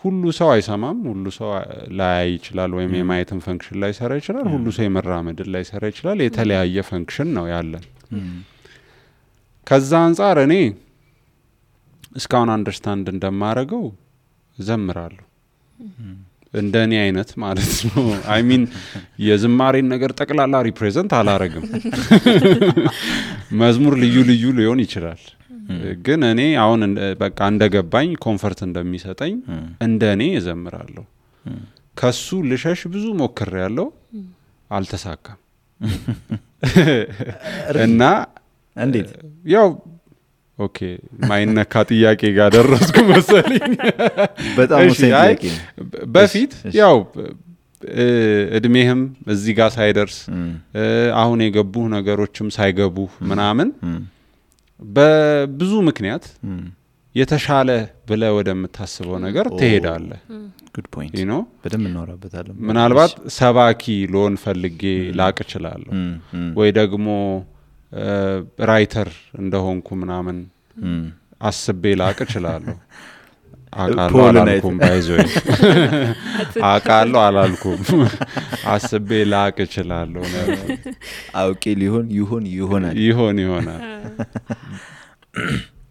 ሁሉ ሰው አይሰማም፣ ሁሉ ሰው ላይ ይችላል ወይም የማየትን ፈንክሽን ላይ ሰራ ይችላል፣ ሁሉ ሰው የመራመድን ላይ ሰራ ይችላል። የተለያየ ፈንክሽን ነው ያለን። ከዛ አንፃር እኔ እስካሁን አንደርስታንድ እንደማረገው ዘምራለሁ እንደኔ አይነት ማለት ነው። አይ ሚን የዝማሬን ነገር ጠቅላላ ሪፕሬዘንት አላረግም። መዝሙር ልዩ ሊሆን ይችላል፣ ግን እኔ አሁን በቃ እንደገባኝ ኮንፈርት እንደሚሰጠኝ እንደኔ እዘምራለሁ። ከሱ ልሸሽ ብዙ ሞክሬያለሁ፣ አልተሳካም። እና እንዴት ያው ኦኬ ማይነካ ጥያቄ ጋር ደረስኩ መሰለኝ። በጣም ወሳኝ በፊት ያው እድሜህም እዚህ ጋር ሳይደርስ አሁን የገቡ ነገሮችም ሳይገቡ ምናምን በብዙ ምክንያት የተሻለ ብለ ወደምታስበው ነገር ትሄዳለህ። ጉድ ፖይንት you በደንብ እናወራበታለን። ምናልባት ሰባኪ ሎን ፈልጌ ላቅ እችላለሁ ወይ ደግሞ ራይተር እንደሆንኩ ምናምን አስቤ ላቅ እችላለሁ። አቃለው አላልኩም ባይዞይ አቃለው አላልኩም አስቤ ላቅ እችላለሁ። አውቄ ይሆናል።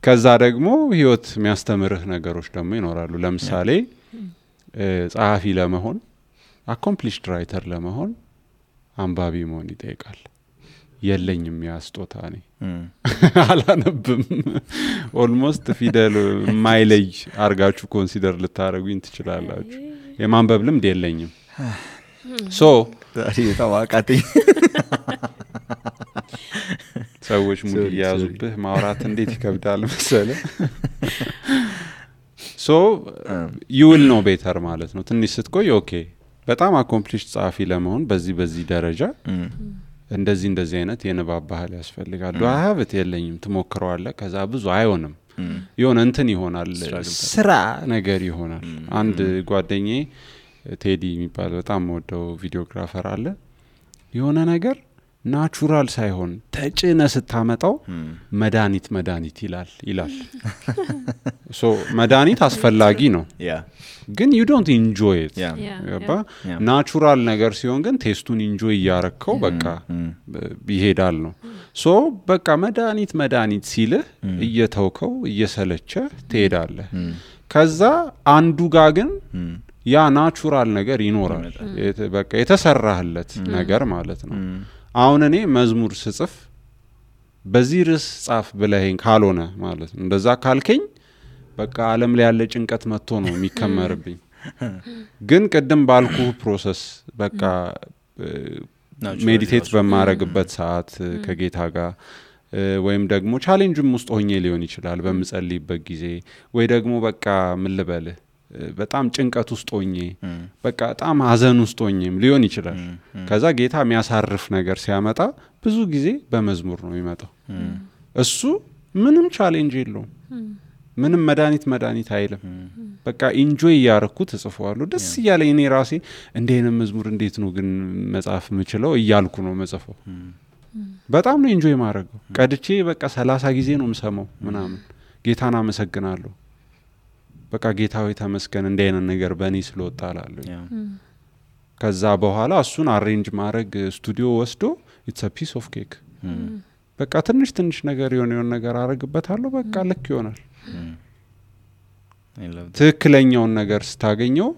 ከዛ ደግሞ ህይወት የሚያስተምርህ ነገሮች ደግሞ ይኖራሉ። ለምሳሌ ጸሐፊ ለመሆን አኮምፕሊሽድ ራይተር ለመሆን አንባቢ መሆን ይጠይቃል። የለኝም ያስጦታ ነኝ አላነብም። ኦልሞስት ፊደል ማይለይ አርጋችሁ ኮንሲደር ልታረጉኝ ትችላላችሁ። የማንበብ ልምድ የለኝም። ታዋቃተኝ ሰዎች ሙሉ ያዙብህ ማውራት እንዴት ይከብዳል መሰለ። you will know better ማለት ነው። ትንሽ ስትቆይ ኦኬ በጣም አኮምፕሊሽድ ጸሐፊ ለመሆን በዚህ ደረጃ እንደዚህ አይነት የንባብ ባህል ያስፈልጋል። ሀብት የለኝም ትሞክረዋለህ። ከዛ ብዙ አይሆንም፣ የሆነ እንትን ይሆናል፣ ስራ ነገር ይሆናል። አንድ ጓደኛዬ ቴዲ የሚባል በጣም ወደው ቪዲዮግራፈር አለ። የሆነ ነገር ናቹራል ሳይሆን ተጭነ ስታመጣው መድኃኒት ይላል። መድኃኒት አስፈላጊ ነው፣ ግን you don't enjoy it. ናቹራል ነገር ሲሆን ግን ቴስቱን ኢንጆይ እያረከው በቃ ይሄዳል ነው። በቃ መድኃኒት ሲልህ እየተውከው እየሰለቸ ትሄዳለህ። ከዛ አንዱ ጋር ግን ያ ናቹራል ነገር ይኖራል፣ በቃ የተሰራህለት ነገር ማለት ነው። አሁን እኔ መዝሙር ስጽፍ በዚህ ርዕስ ጻፍ ብለኸኝ ካልሆነ ማለት ነው እንደዛ ካልከኝ በቃ ዓለም ላይ ያለ ጭንቀት መጥቶ ነው የሚከመርብኝ ግን ቅድም ባልኩ ፕሮሰስ በቃ ሜዲቴት በማረግበት ሰዓት ከጌታ ጋር ወይም ደግሞ ቻሌንጅም ውስጥ ሆኜ ሊሆን ይችላል በመጸልይበት ጊዜ ወይ ደግሞ በቃ ምን ልበልህ በጣም ጭንቀት ውስጥ ሆኜ በቃ በጣም ሀዘን ውስጥ ሆኜም ሊሆን ይችላል ከዛ ጌታ የሚያሳርፍ ነገር ሲያመጣ ብዙ ጊዜ በመዝሙር ነው የሚመጣው እሱ ምንም ቻሌንጅ የለውም ምንም መድኃኒት አይልም በቃ ኢንጆይ ያረኩት እጽፈዋለሁ ደስ እያለኝ እኔ ራሴ እንደኔ መዝሙር እንዴት ነው ግን መጻፍ የምችለው እያልኩ ነው መጽፈው በጣም ነው ኢንጆይ ማረገው ቀድቼ በቃ 30 ጊዜ ነው የምሰማው ምናምን ጌታን አመሰግናለሁ በቃ ጌታው ተመስገን እንደኔ ነገር በእኔ ስለወጣላለሁ ከዛ በኋላ እሱን አሬንጅ ማድረግ ስቱዲዮ ወስዶ it's a piece of cake በቃ ትንሽ ነገር የሆነ ነገር አረግበታለሁ በቃ ልክ ይሆናል ትክክለኛውን ነገር ስታገኘው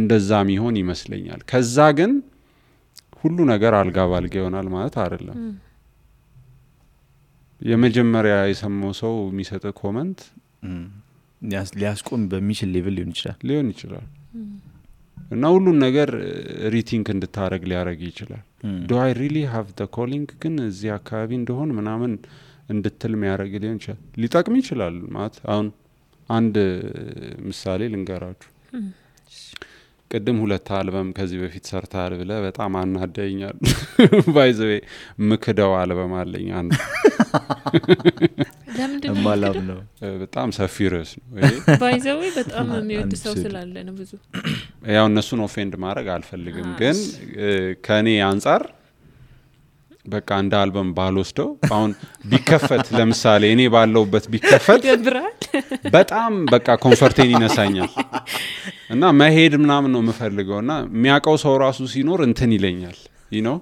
እንደዛም ይሆን ይመስለኛል ከዛ ግን ሁሉ ነገር አልጋ ባልጋ ይሆናል ማለት አይደለም የመጀመሪያ የሰማው ሰው የሚሰጥ ኮሜንት ሊያስቆም በሚችል ሌቭል ሊሆን ይችላል እና ሁሉ ነገር ሪቲንክ እንድታረግ ሊያረግ ይችላል do I really have the calling ግን እዚህ አካባቢ እንደሆን ምናምን እንድትል የሚያረግ ሊሆን ይችላል ሊጠቅም ይችላል ማለት አሁን አንድ ምሳሌ ልንገራችሁ ቅድም 2 አልበም ከዚህ በፊት ሰርታል ብለ በጣም አናደኛል ባይዘዌ ምክደው አልበም አለኝ አንድ ለምንድነው ነው በጣም ሰፊ ርዕስ ነው ባይዘዌ በጣም የሚወድ ሰው ስላለ ነው ብዙ ያው እነሱን ኦፌንድ ማድረግ አልፈልግም ግን ከኔ አንፃር በቃ እንደ አልበም ባልወስደው አሁን ቢከፈት ለምሳሌ እኔ ባለውበት ቢከፈት በጣም በቃ ኮምፎርቴን ይነሳኛል እና መሄድ ምናምን ነው የምፈልገውና የሚያቀው ሰው ራሱ ሲኖር እንትን ይለኛል you know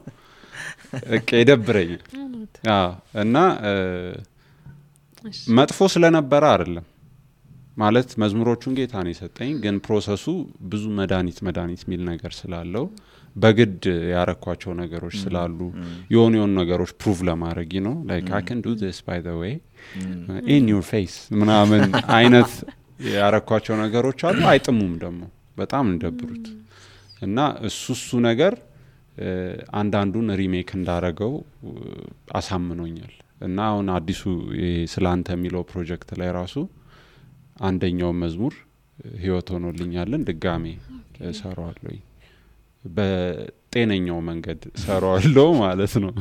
እቀደብረኛል እና መጥፎ ስለነበረ አይደለም ማለት መዝሙሮቹን ጌታ ነው የሰጠኝ ግን ፕሮሰሱ ብዙ መድኃኒት ሚል ነገር ስላለው በግድ ያረኳቸው ነገሮች ስላሉ የሆኑ ነገሮች ፕሩቭ ለማድረግ ነው like I can do this by the way in your face ምናምን አይነት ያረኳቸው ነገሮች አሉ አይጥሙም ደግሞ በጣም እንደብሩት እና እሱ ነገር አንዳንዱን ሪሜክ እንዳረገው አሳምኖኛል እና አሁን አዲሱ ስላንተ የሚለው ፕሮጀክት ላይ ራሱ አንደኛው መዝሙር ህይወት ሆኖልኛልን ድጋሜ ሰራዋለሁ በጤነኛው መንገድ ሰራዋለሁ ማለት ነው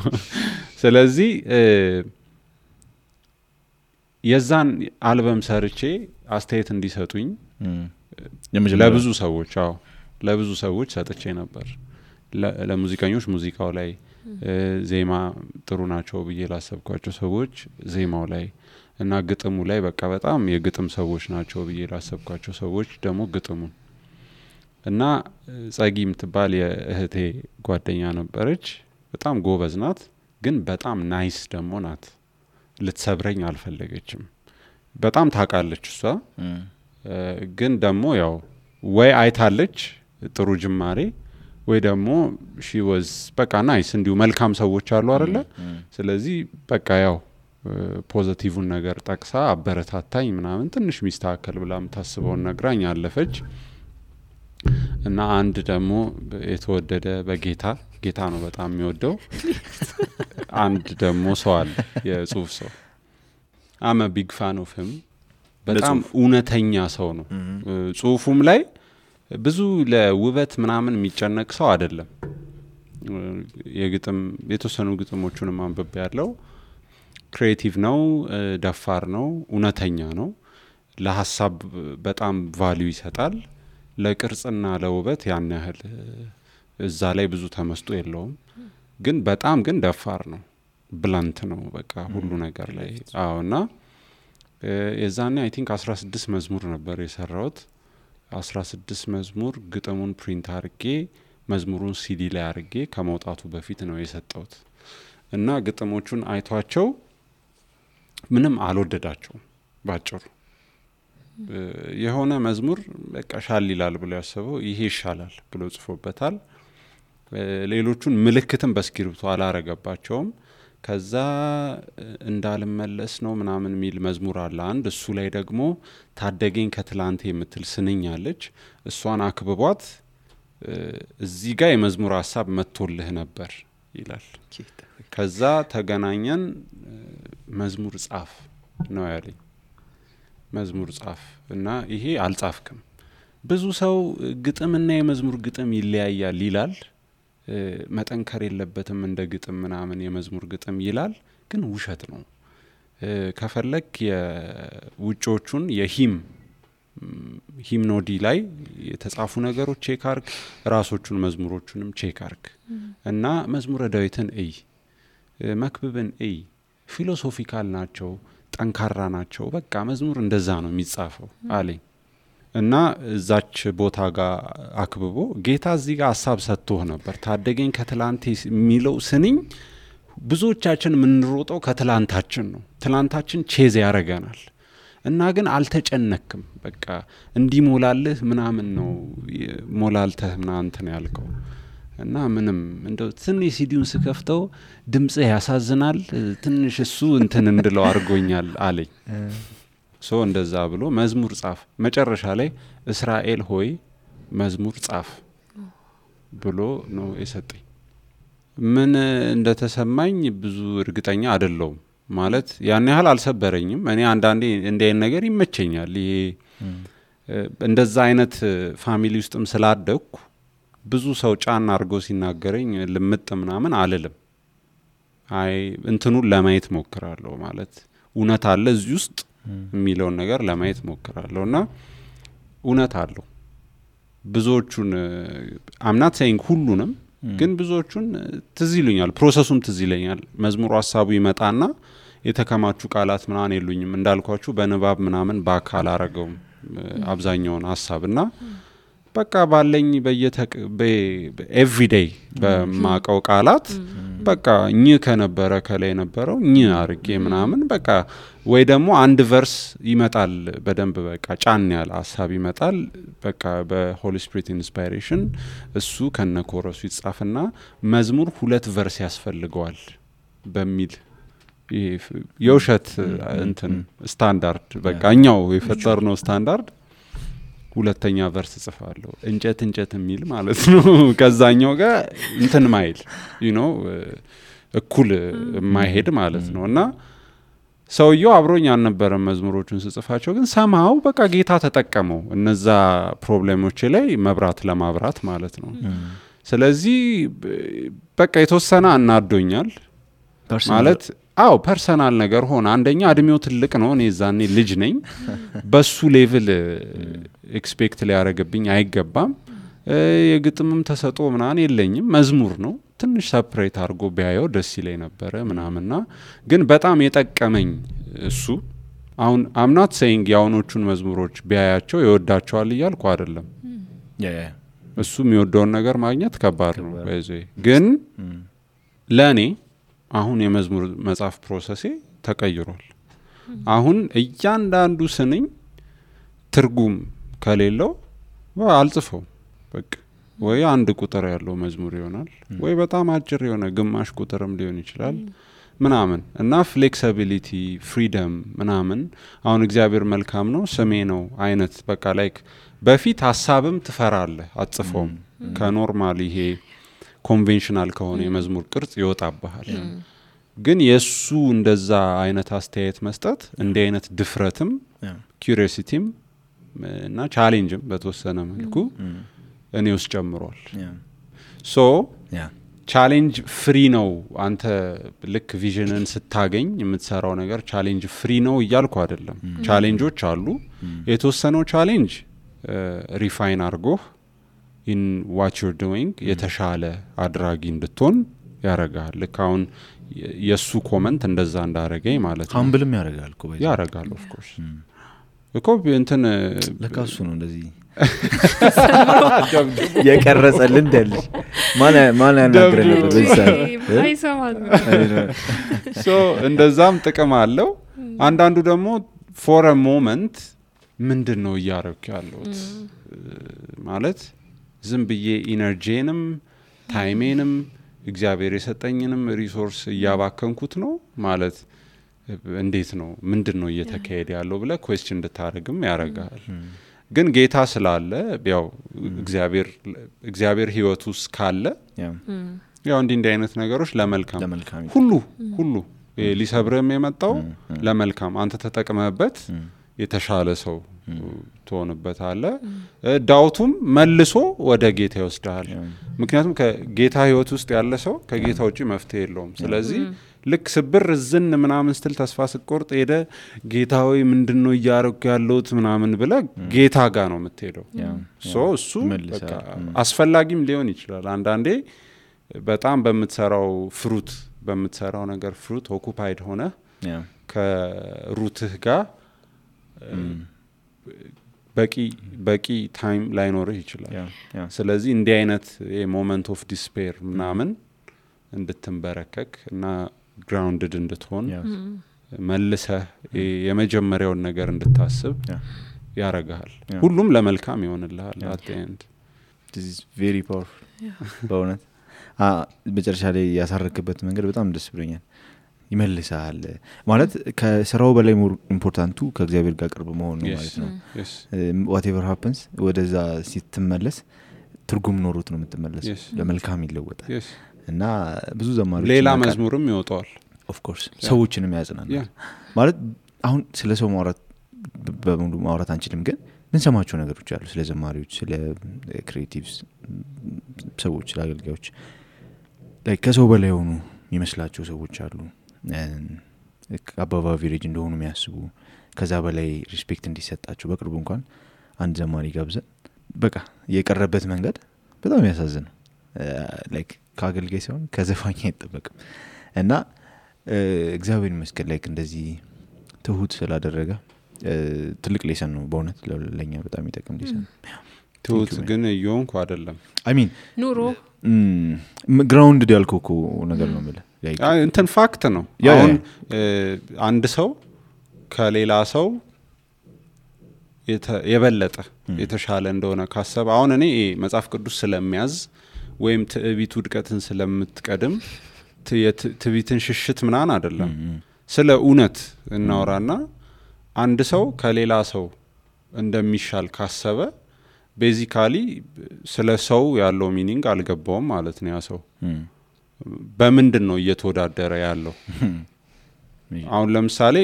ስለዚህ የዛን አልበም ሰርቼ አስተያየት እንዲሰጡኝ ለብዙ ሰዎች ሰጥቼ ነበር ለሙዚቀኞች ሙዚቃው ላይ ዜማ ጥሩ ናቸው ብዬ ላሰብኳቸው ሰዎች ዜማው ላይ እና ግጥሙ ላይ በቃ በጣም የግጥም ሰዎች ናቸው ብዬ ላሰብኳቸው ሰዎች ደግሞ ግጥሙን እና ጸጊ ምትባል የእህቴ ጓደኛ ነበረች በጣም ጎበዝ ናት ግን በጣም ናይስ ደግሞ ናት ልትሰብረኝ አልፈለገችም በጣም ታቃለች እሷ ግን ደግሞ ያው ወይ አይታለች ጥሩ ጅማሬ ወይ ደግሞ she was በቃ ናይስ እንዲሁ መልካም ሰዎች አሉ አይደለ ስለዚህ በቃ ያው ፖዚቲቭን ነገር ጠቅሳ አበረታታኝ ምናምን ትንሽ ሚስተካከል ብላም ታስበውን ነግራኝ አለፈች እና አንድ ደግሞ የተወደደ ጌታ ነው በጣም የሚወደው አንድ ደግሞ ሰው አለ የጽሁፍ ሰው I'm a big fan of him በጣም እውነተኛ ሰው ነው ጽሁፉም ላይ ብዙ ለውበት ምናምን የሚጨነቅ ሰው አይደለም የግጥም የተወሰኑ ግጥሞቹን ማንበብ ያለው ክሬቲቭ ነው ደፋር ነው እውነተኛ ነው ለሐሳብ በጣም ቫልዩ ይሰጣል ለቅርጽና ለውበት ያን ያህል እዛ ላይ ብዙ ተመስጦ የለውም ግን በጣም ግን ደፋር ነው ብላንት ነው በቃ ሁሉ ነገር ላይ አዎና የዛኔ አይ ቲንክ 16 መዝሙር ነበር የሰራውት 16 መዝሙር ግጥሙን ፕሪንት አርጌ መዝሙሩን ሲዲ ላይ አርጌ ከመውጣቱ በፊት ነው የሰጠውት እና ግጥሞቹን አይቷቸው ምንም አልወደዳቸው ባጭሩ የሆነ መዝሙር በቃ ሻል ይላል ብሎ ያሰበው ይሄ ይሻላል ብሎ ጽፎበታል ሌሎቹን ምልክትም በስክሪፕቱ አላረገባቸውም። ከዛ እንዳልመለስ ነው ምናምን ሚል መዝሙር አለ አንድ። እሱ ላይ ደግሞ ታደገኝ ከትላንቴ የምትል ስንኝ አለች። እሷን አክብቧት እዚህ ጋር የመዝሙር ሀሳብ መጥቶልህ ነበር ይላል። ከዛ ተገናኘን መዝሙር ጻፍ ነው ያለኝ። መዝሙር ጻፍ እና ይሄ አልጻፍክም። ብዙ ሰው ግጥምና የመዝሙር ግጥም ይለያያል ይላል። መጠንከር የለበትም እንደ ግጥም ምናምን የመዝሙር ግጥም ይላል፣ ግን ውሸት ነው። ከፈለክ የውጮቹን ሂምኖዲ ላይ የተጻፉ ነገሮች ቼክ አርግ፣ ራሶቹን መዝሙሮቹንም ቼክ አርግ እና መዝሙረ ዳዊትን እይ፣ መክብብን እይ። ፊሎሶፊካል ናቸው፣ ጠንካራ ናቸው። በቃ መዝሙር እንደዛ ነው የሚጻፈው አለኝ። እና እዛች ቦታ ጋር አክብቦ ጌታ እዚህ ጋር ሀሳብ ሰጥቶህ ነበር። ታደገኝ ከትላንቴ የሚለው ስንኝ ብዙዎቻችን የምንሮጠው ከትላንታችን ነው። ትላንታችን ቼዝ ያረገናል እና ግን አልተጨነክም። በቃ እንዲሞላልህ ምናምን ነው ሞላልተህ ምናምን ነው ያልከው። እና ምንም እንደው ትንሽ ሲዲውን ስከፍተው ድምጽህ ያሳዝናል ትንሽ እሱ እንትን እንድለው አድርጎኛል አለኝ። ሶ እንደዛ ብሎ መዝሙር ጻፍ። መጨረሻ ላይ እስራኤል ሆይ መዝሙር ጻፍ ብሎ ነው የሰጠኝ። ምን እንደተሰማኝ ብዙ እርግጠኛ አይደለሁም። ማለት ያን ያህል አልሰበረኝም። እኔ አንዳንዴ እንደ አይነት ነገር ይመቸኛል። ይሄ እንደዛ አይነት ፋሚሊ ውስጥም ስላደኩ ብዙ ሰው ጫና አድርጎ ሲናገረኝ ልምጥ ምናምን አልልም። አይ እንትኑን ለማየት ሞክራለሁ። ማለት እውነት አለ እዚህ ውስጥ የሚለውን ነገር ለማየት ሞክራለሁ እና እውነት አለው። ብዙዎቹን አምናት ሳይንግ ሁሉንም ግን ብዙዎቹን ትዝ ይሉኛል። ፕሮሰሱም ትዝ ይለኛል። መዝሙሩ ሀሳቡ ይመጣና የተከማቹ ቃላት ምናምን የሉኝም እንዳልኳችሁ በንባብ ምናምን በአካል አረገውም አብዛኛውን ሀሳብና በቃ ባለኝ ኤቭሪዴይ በማቀው ቃላት በቃ እኚ ከነበረ ከላይ ነበረው እኚ አርጌ ምናምን በቃ ወይ ደግሞ አንድ ቨርስ ይመጣል በደንብ በቃ ጫን ያለ ሀሳብ ይመጣል። በቃ በሆሊ ስፒሪት ኢንስፓይሬሽን እሱ ከነኮረሱ ይጻፍና መዝሙር 2 ቨርስ ያስፈልገዋል በሚል የውሸት እንትን ስታንዳርድ በቃ እኛው የፈጠርነው ስታንዳርድ ሁለተኛ ቨርስ ጽፋለሁ እንጨት እንጨት የሚል ማለት ነው። ከዛኛው ጋር እንትን ማይል እኩል ማይሄድ ማለት ነው። እና ሰውየው አብሮኝ አልነበረም መዝሙሮቹን ስጽፋቸው፣ ግን ሰማው በቃ ጌታ ተጠቀመው እነዛ ፕሮብሌሞች ላይ መብራት ለማብራት ማለት ነው። ስለዚህ በቃ የተወሰነ አናዶኛል ማለት ፐርሰናል ነገር ሆነ። አንደኛ እድሜው ትልቅ ነው፣ እኔ ዛኔ ልጅ ነኝ። በሱ ሌቭል ኤክስፔክት ሊያረገብኝ አይገባም። የግጥምም ተሰጦ ምናምን የለኝም። መዝሙር ነው፣ ትንሽ ሰፕሬት አድርጎ ቢያየው ደስ ይለኝ ነበረ ምናምንና ግን በጣም የጠቀመኝ እሱ። አሁን አምናት ሴይንግ የአሁኖቹን መዝሙሮች ቢያያቸው ይወዳቸዋል እያልኩ አይደለም። እሱ የሚወደውን ነገር ማግኘት ከባድ ነው። ግን ለእኔ አሁን የመዝሙር መጻፍ ፕሮሰሴ ተቀይሯል። አሁን እያንዳንዱ ስንኝ ትርጉም ከሌለው አልጽፈው በቃ ወይ አንድ ቁጥር ያለው መዝሙር ይሆናል ወይ በጣም አጭር የሆነ ግማሽ ቁጥርም ሊሆን ይችላል ምናምን እና ፍሌክሲቢሊቲ ፍሪደም ምናምን። አሁን እግዚአብሔር መልካም ነው ስሜ ነው አይነት በቃ ላይክ በፊት ሀሳብም ትፈራለህ አጽፈውም ከኖርማል ይሄ ኮንቬንሽናል ከሆነ የመዝሙር ቅርጽ ይወጣብሃል። ግን የሱ እንደዛ አይነት አስተያየት መስጠት እንዲህ አይነት ድፍረትም ኪዩሪዮሲቲም እና ቻሌንጅም በተወሰነ መልኩ እኔ ውስጥ ጨምሯል። ሶ ቻሌንጅ ፍሪ ነው። አንተ ልክ ቪዥንን ስታገኝ የምትሰራው ነገር ቻሌንጅ ፍሪ ነው እያልኩ አይደለም። ቻሌንጆች አሉ። የተወሰነው ቻሌንጅ ሪፋይን አድርጎህ in what you're doing የተሻለ አድራጊ እንድትሆን ያረጋል። ልክ አሁን የሱ ኮመንት እንደዛ እንዳረገኝ ማለት ነው። ሃምብልም ያረጋል እኮ በዚህ ያረጋል። ኦፍ ኮርስ እኮ እንትን ለካሱ ነው እንደዚህ የቀረጸልን ደልሽ ማን ያናግረ ነበር በዛ አይሰማል። ሶ እንደዛም ጥቅም አለው። አንዳንዱ ደግሞ for a moment ምንድነው ያረክ ያለው ማለት ዝም ብዬ ኢነርጂንም ታይሜንም እግዚአብሔር የሰጠኝንም ሪሶርስ እያባከንኩት ነው ማለት እንዴት ነው ምንድነው እየተካሄደ ያለው ብለ ኩዌስችን እንድታረግም ያረጋል ግን ጌታ ስላለ ያው እግዚአብሔር ህይወት ውስጥ ካለ ያው እንዲህ አይነት ነገሮች ለመልካም ሁሉ ሊሰብርም የመጣው ለመልካም አንተ ተጠቅመህበት የተሻለ ሰው ትሆንበታለ ዳውቱም መልሶ ወደ ጌታ ይወስዳል ምክንያቱም ከጌታ ህይወት ውስጥ ያለ ሰው ከጌታ ውጪ መፍትሄ የለውም ስለዚህ ልክ ስብር ዝን ምናምን ስትል ተስፋ ስቆርጥ ሄደ ጌታዊ ምንድነው ያረኩ ያለውት ምናምን ብለ ጌታ ጋር ነው የምትሄደው እሱ በቃ አስፈላጊም ሊሆን ይችላል አንዳንዴ በጣም በምትሰራው ነገር ፍሩት ኦኩፓይድ ሆነ ከሩትህ ጋር በቂ ታይም ላይኖርህ ይችላል ስለዚህ እንዲህ አይነት ሞመንት ኦፍ ዲስፔር ምናምን እንድትንበረከክ እና ግራውንድድ እንድትሆን መልሰህ የመጀመሪያውን ነገር እንድታስብ ያረጋል ሁሉም ለመልካም ይሆንልሃል at the end this is very powerful በእውነት በመጨረሻ ላይ ያሳረክበት መንገድ በጣም ደስ ብሎኛል ይመልሳል ማለት ከስራው በላይ ኢምፖርታንቱ ከእግዚአብሔር ጋር ቅርብ መሆን ነው ማለት ነው whatever happens ወደዛ ሲትመለስ ትርጉም ኖሮት ነው የምትመለሰው ለመልካም ይለወጣል እና ብዙ ዘማሪዎች ሌላ መዝሙርም ይወጣል of course ሰዎችንም ያጽናናል ማለት አሁን ስለ ሰው በሙሉ ማውራት አንችልም ግን ምን ሰማቸው ነገሮች አሉ ስለ ዘማሪዎች ስለ ክሪኤቲቭስ ሰዎች ስለ አገልጋዮች ከሰው በላይ ሆኑ ይመስላቸው ሰዎች አሉ አባባ ቪሌጅ እንደሆኑ የሚያስቡ ከዛ በላይ ሪስፔክት እንዲሰጣቸው በቅርቡ እንኳን አንድ ዘማሪ ጋብዘን በቃ የቀረበት መንገድ በጣም ያሳዝናል ላይክ ካገልጋይ ሲሆን ከዘፋኝ አይጠበቅም እና እግዚአብሔር ይመስገን ላይክ እንደዚህ ትሁት ስላደረገ ትልቅ ሌሰን ነው በእውነት ለኛ በጣም ይጠቅም ሌሰን ትሁት ግን ይሆንኩ አይደለም I mean ኑሮ ግራውንድ ያልኩኩ ነገር ነው ማለት እንትን ፋክት ነው አሁን አንድ ሰው ከሌላ ሰው የበለጠ የተሻለ እንደሆነ ካሰበ አሁን እኔ መጽሐፍ ቅዱስ ስለሚያዝ ወይም ትዕቢት ውድቀትን ስለምትቀድም ትዕቢትን ሽሽት ምናን አይደለም ስለ እውነት እናወራና አንድ ሰው ከሌላ ሰው እንደሚሻል ካሰበ ቤዚካሊ ስለ ሰው ያለው ሚኒንግ አልገባውም ማለት ነው ያ ሰው በምንድን ነው እየተወዳደረ ያለው አሁን ለምሳሌ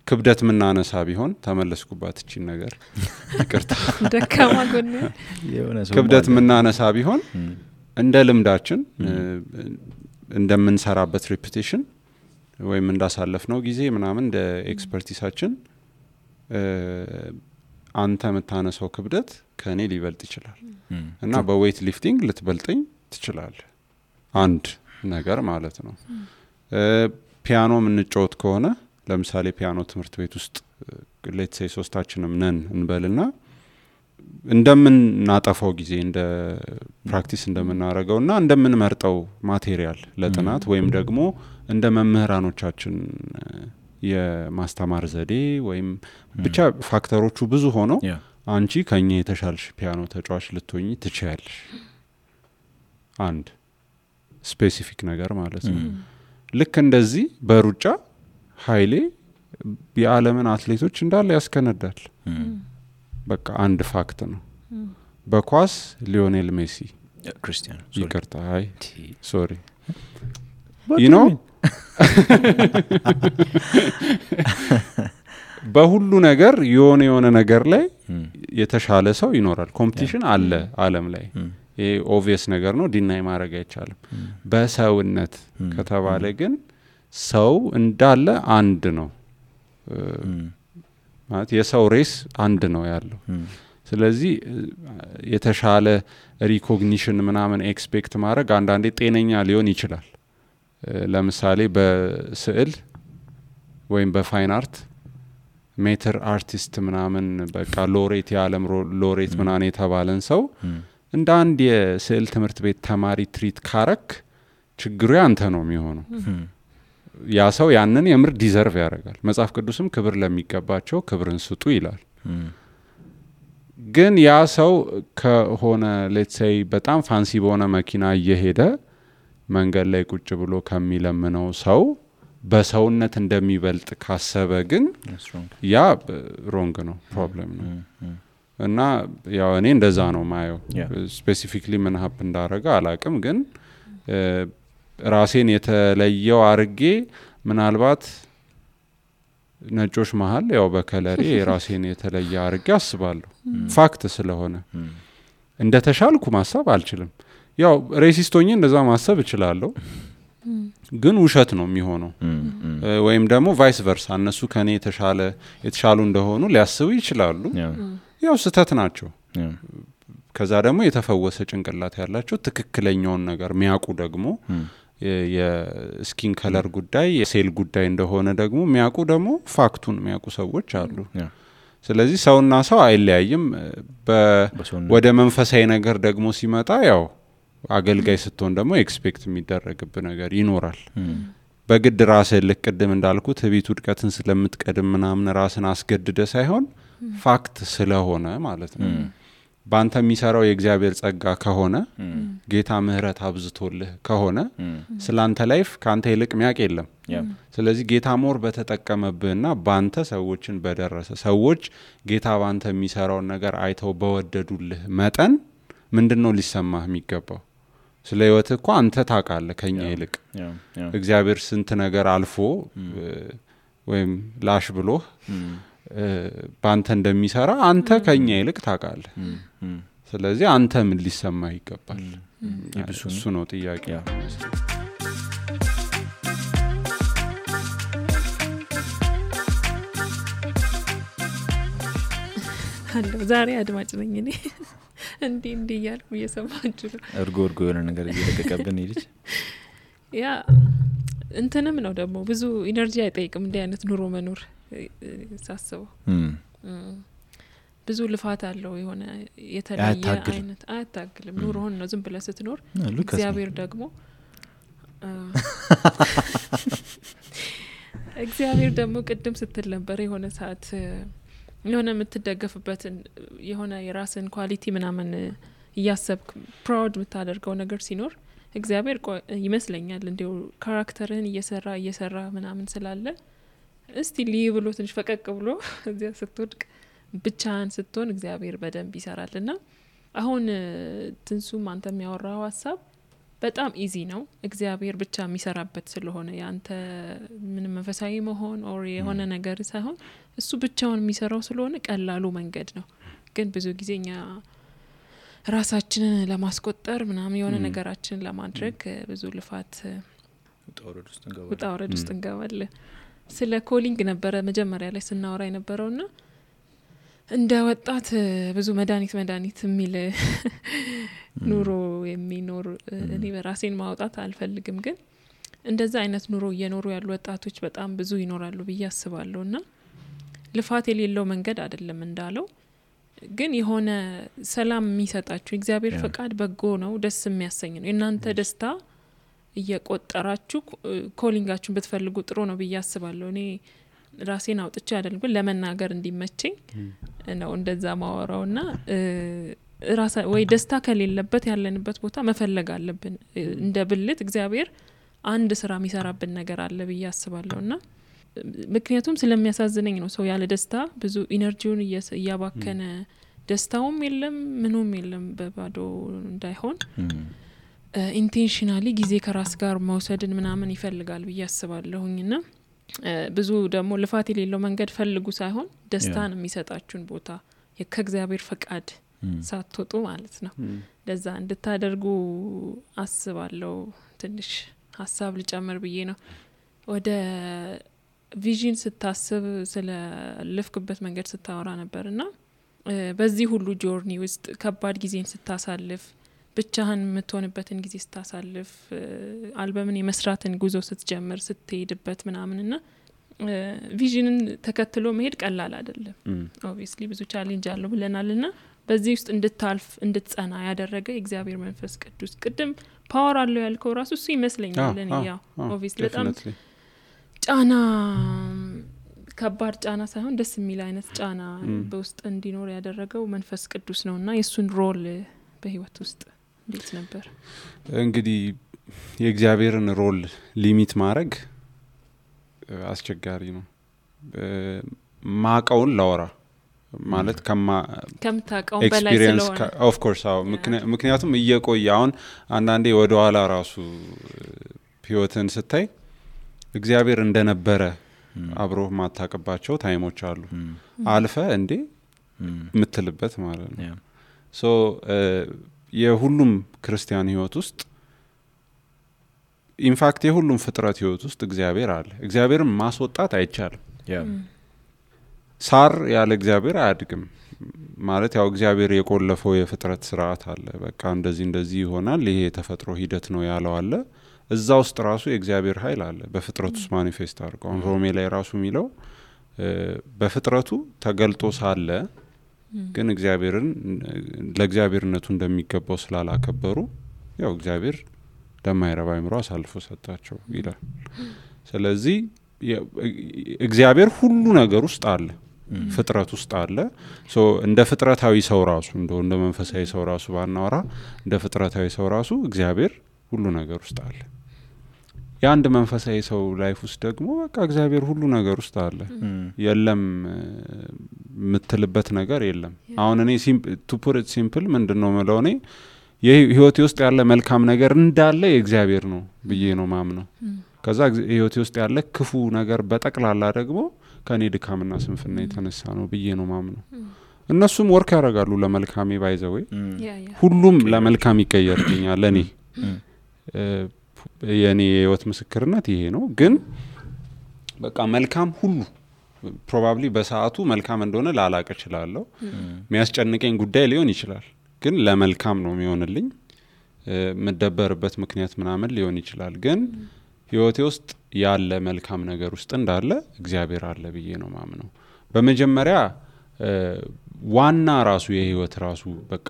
ክብደት ምናነሳ ቢሆን ተመለስኩባት እቺ ነገር ይቅርታ ደካማ ጎን ክብደት ምናነሳ ቢሆን እንደ ልምዳችን እንደምንሰራበት ሪፒቲሽን ወይም እንዳሳለፍነው ጊዜ ምናምን እንደ ኤክስፐርቲሳችን አንተ መታነሰው ክብደት ከኔ ሊበልጥ ይችላል እና በዌይት ሊፍቲንግ ልትበልጠኝ ትችላል አንድ ነገር ማለት ነው ፒያኖ ምንጫወት ከሆነ ለምሳሌ ፒያኖ ትምህርት ቤት ውስጥ ሌትስ ሴይ ሶስታችንም ነን እንበልና እንደምናጠፋው ጊዜ እንደ ፕራክቲስ እንደምናረገውና እንደምንመርጠው ማቴሪያል ለጥናት ወይም ደግሞ እንደ መምህራኖቻችን የማስተማር ዘዴ ወይም ብቻ ፋክተሮቹ ብዙ ሆነው አንቺ ከኛ የተሻልሽ ፒያኖ ተጫዋች ልትሆኚ ትችያለሽ አንድ ስፔሲፊክ ነገር ማለት ነው ልክ እንደዚህ በሩጫ ኃይሌ የዓለምን አትሌቶች እንዳለ ያስከነዳል በቃ አንድ ፋክት ነው በኳስ ሊዮኔል ሜሲ ክርስቲያኖ ይቅርታ አይ ሶሪ you know በሁሉ ነገር የሆነ ነገር ላይ የተሻለ ሰው ይኖራል ኮምፒቲሽን አለ ዓለም ላይ ይሄ ኦብቪየስ ነገር ነው ዲናይ ማድረግ አይቻልም በሰውነት ከተባለ ግን ሰው እንዳለ አንድ ነው ማለት የሰው ሬስ አንድ ነው ያለው ስለዚህ የተሻለ ሪኮግኒሽን ምናምን ኤክስፔክት ማድረግ አንዳንዴ ጤነኛ ሊሆን ይችላል ለምሳሌ በስዕል ወይም በፋይን አርት ሜተር አርቲስት ምናምን በቃ ሎሬት የዓለም ሎሬት ምናምን የተባለን ሰው እንደ አንድ የስዕል ትምህርት ቤት ተማሪ ትሪት ካረክ ችግሩ ያንተ ነው የሚሆነው ያ ሰው ያንን የምር ዲዘርቭ ያደርጋል መጽሐፍ ቅዱስም ክብር ለሚገባቸው ክብርን ስጡ ይላል ግን ያ ሰው ከሆነ ሌትስ ሴይ በጣም ፋንሲ በሆነ መኪና እየሄደ መንገድ ላይ ቁጭ ብሎ ከሚለምነው ሰው በሰውነት እንደሚበልጥ ካሰበ ግን ያ ሮንግ ነው ፕሮብሌም ነው እና ያው እኔ እንደዛ ነው ማየው ስፔሲፊክሊ ምን ሀፕ እንዳረጋ አላቅም ግን ራሴን የተለየው አርጌ ምናልባት ነጮች መሃል ያው በከለሬ ራሴን የተለየ አርጌ አስባለሁ ፋክት ስለሆነ እንደተሻልኩ ማሰብ አልችልም ያው ሬሲስቶኝ እንደዛ ማሰብ እችላለሁ ግን ውሸት ነው የሚሆነው ወይም ደግሞ ቫይስ ቨርሳ እነሱ ከኔ የተሻሉ እንደሆኑ ሊያስቡ ይችላሉ ያው ስተት ናቸው ከዛ ደግሞ የተፈወሰ ጭንቅላት ያላቸው ትክክለኛውን ነገር ሚያቁ ደግሞ የስኪን ከለር ጉዳይ የሴል ጉዳይ እንደሆነ ደግሞ ሚያቁ ደግሞ ፋክቱን ሚያቁ ሰዎች አሉ ስለዚህ ሰውና ሰው አይለያይም ወደ መንፈሳዊ ነገር ደግሞ ሲመጣ ያው አገልጋይ ስትሆን ደግሞ ኤክስፔክት የሚደረግብ ነገር ይኖራል በግድ ራስህ ልቅድም እንዳልኩት ቤት ውድቀትን ስለምትቀድም ምናምን ራስን አስገድደ ሳይሆን ፋክት ስለሆነ ማለት ነው ባንተ የሚሰራው የእግዚአብሔር ጸጋ ከሆነ ጌታ ምህረት አብዝቶልህ ከሆነ ስላንተ ላይፍ ካንተ ይልቅ ሚያቅ የለም ስለዚህ ጌታ ሞር በተጠቀመብህና ባንተ ሰዎችን በደረሰ ሰዎች ጌታ ባንተ የሚሰራው ነገር አይተው በወደዱልህ መጠን ምንድነው ሊሰማህ የሚገባው ስለ ህይወት እኮ አንተ ታውቃለህ ከኛ ይልቅ እግዚአብሔር ስንት ነገር አልፎ ወይም ላሽ ብሎ ባንተ እንደሚሰራ አንተ ከኛ ይልቅ ታውቃለህ ስለዚህ አንተ ምን ሊሰማህ ይገባል እሱ ነው ጥያቄ አሎ ዛሬ አድማጭ ነኝ እኔ እንዴ ያልኩ እየሰማችሁ ነው እርጎ የሆነ ነገር እየለቀቀብን ይልች ያ እንትንም ነው ደግሞ ብዙ ኢነርጂ አይጠይቅም እንደ አይነት ኑሮ መኖር ሳስበው ብዙ ልፋት አለው የሆነ የተለየ አይነት አያታግልም ኑሮውን ነው ዝም ብለህ ስትኖር እግዚአብሔር ደግሞ ቅድም ስትል ነበር የሆነ ሰዓት የሆነ የምትደገፍበት የሆነ የራስን ኳሊቲ ምናምን እያሰብክ ፕራውድ የምታደርገው ነገር ሲኖር እግዚአብሔር ይመስለኛል እንዲው ካራክተርህን እየሰራ ምናምን ስላለ እስቲ ብሎ ትንሽ ፈቀቅ ብሎ እዚያ ስትወድቅ ብቻህን ስትሆን እግዚአብሔር በደንብ ይሰራልና አሁን ትንሱም አንተ የሚያወራው ሐሳብ በጣም ኢዚ ነው እግዚአብሔር ብቻ የሚሰራበት ስለሆነ ያንተ ምንም መንፈሳዊ መሆን ኦር የሆነ ነገር ሳይሆን እሱ ብቻውን የሚሰራው ስለሆነ ቀላሉ መንገድ ነው ግን ብዙ ጊዜኛ ራሳችንን ለማስቆጠር ምናምን የሆነ ነገራችንን ለማድረግ ብዙ ልፋት ውጣ ወረድ ውስጥ እንገባለን ስለ ኮሊንግ ነበረ መጀመሪያ ላይ ስናወራ የነበረውና እንደ ወጣት ብዙ መድኃኒት የሚል ኑሮ የሚኖር እኔ በራሴን ማውጣት አልፈልግም ግን እንደዛ አይነት ኑሮ እየኖሩ ያሉ ወጣቶች በጣም ብዙ ይኖራሉ ብዬ አስባለሁና ልፋት የሌለው መንገድ አይደለም እንዳለው ግን የሆነ ሰላም የሚሰጣችሁ እግዚአብሔር ፈቃድ በጎ ነው ደስ የሚያሰኝ ነው እናንተ ደስታ እየቆጠራችሁ ኮሊንጋችሁን ብትፈልጉ ጥሩ ነው ብዬ አስባለሁ እኔ ራሴን አውጥቼ አይደለም ግን ለመናገር እንዲመቸኝ ነው እንደዛ ማወራውና ወይ ደስታ ከሌለበት ያለንበት ቦታ መፈለግ አለብን እንደ ብልት እግዚአብሔር አንድ ስራ የሚሰራብን ነገር አለ ብዬ አስባለሁና ምክንያቱም ስለሚያሳዝነኝ ነው ሰው ያለ ደስታ ብዙ ኢነርጂውን እያባከነ ደስታውም የለም ምኑም የለም በባዶ እንዳይሆን ኢንቴንሽናሊ ጊዜ ከራስ ጋር መውሰድን ምናምን ይፈልጋል ብዬ አስባለሁኝና ብዙ ደግሞ ልፋት የሌለው መንገድ ፈልጉ ሳይሆን ደስታን የሚሰጣችሁን ቦታ ከእግዚአብሔር ፈቃድ ሳትወጡ ማለት ነው ለዛ እንድታደርጉ አስባለሁ ትንሽ ሐሳብ ልጨምር ብዬ ነው ወደ ቪዥን ስታስብ ስለ ልፍክበት መንገድ ስታወራ ነበርና በዚህ ሁሉ ጆርኒ ውስጥ ከባድ ጊዜን ስታሳልፍ ብቻህን የምትሆንበትን ጊዜ ስታሳልፍ አልበምን የመስራትን ጉዞ ስትጀምር ስትሄድበት ምናምንና ቪዥንን ተከትሎ መሄድ ቀላል አይደለም ኦብቪየስሊ ብዙ ቻሌንጅ አለው ብለናልና በዚህ ውስጥ እንድታልፍ እንድትጸና ያደረገ እግዚአብሔር መንፈስ ቅዱስ ቅድም ፓወር አለው ያልከው ራሱ እሱ ይመስለኛል ለኔ ያው ኦብቪየስሊ በጣም ጫና ከባድ ጫና ሳይሆን ደስ የሚል አይነት ጫና በውስጥ እንዲኖር ያደረገው መንፈስ ቅዱስ ነውና የሱን ሮል በህይወት ውስጥ እንዴት ነበር? እንግዲህ የእግዚአብሔርን ሮል ሊሚት ማድረግ አስቸጋሪ ነው። ማቀውን ላወራ ማለት ከምታቀው በላይ ስለሆነ ኦፍ ኮርስ አዎ ምክንያቱም እየቆየ አሁን አንዳንዴ ወደ ኋላ ራሱ ህይወትን ስታይ እግዚአብሔር እንደነበረ አብሮ ማታቀባቸው ታይሞች አሉ አልፈ እንዴ ምትልበት ማለት ነው። ሶ የሁሉም ክርስቲያን ህይወት ውስጥ ኢንፋክት የሁሉም ፍጥረት ህይወት ውስጥ እግዚአብሔር አለ። እግዚአብሔርን ማስወጣት አይቻልም። ሳር ያለ እግዚአብሔር አያድግም ማለት ያው እግዚአብሔር የቆለፈው የፍጥረት ስርዓት አለ። በቃ እንደዚህ ይሆናል ይሄ የተፈጥሮ ሂደት ነው ያለው አለ። እዛ ውስጥ ራሱ የእግዚአብሔር ኃይል አለ በፍጥረቱ ውስጥ ማኒፌስት አድርገው ሮሜ ላይ ራሱ የሚለው በፍጥረቱ ተገልጦ ሳለ ግን እግዚአብሔርን ለእግዚአብሔርነቱ እንደሚገባው ስላላከበሩ ያው እግዚአብሔር ለማይረባ አይምሮ አሳልፎ ሰጣቸው ይላል። ስለዚህ እግዚአብሔር ሁሉ ነገር ውስጥ አለ ፍጥረት ውስጥ አለ። ሶ እንደ ፍጥረታዊ ሰው ራሱ እንደ መንፈሳዊ ሰው ራሱ ባናወራ እንደ ፍጥረታዊ ሰው ራሱ እግዚአብሔር ሁሉ ነገር ውስጥ አለ። የአንድ መንፈሳዊ ሰው ላይፍ ውስጥ ደግሞ በቃ እግዚአብሔር ሁሉ ነገር ውስጥ አለ። የለም ምትልበት ነገር የለም። አሁን እኔ ቱ ፑት ኢት ሲምፕል ምንድነው ማለት ነው የህይወቴ ውስጥ ያለ መልካም ነገር እንዳለ የእግዚአብሔር ነው ብዬ ነው ማምነው። ከዛ ህይወቴ ውስጥ ያለ ክፉ ነገር በጠቅላላ ደግሞ ከኔ ድካምና ስንፍና የተነሳ ነው ብዬ ነው ማምነው። እነሱም ወርክ ያደርጋሉ ለመልካሜ ባይዘው ሁሉም ለመልካም ይቀየርልኛል። ለኔ የኔ ህይወት ምስክርነት ይሄ ነው። ግን በቃ መልካም ሁሉ ፕሮባብሊ በሰዓቱ መልካም እንደሆነ ላላቀ ይችላልው የሚያስጨንቀኝ ጉዳይ ሊሆን ይችላል። ግን ለመልካም ነው የሚሆንልኝ መደበርበት ምክንያት ምናምን ሊሆን ይችላል። ግን ህይወቴ ውስጥ ያለ መልካም ነገር ውስጥ እንዳለ እግዚአብሔር አለ ብዬ ነው ማምነው። በመጀመሪያ ዋና ራሱ የህይወት ራሱ በቃ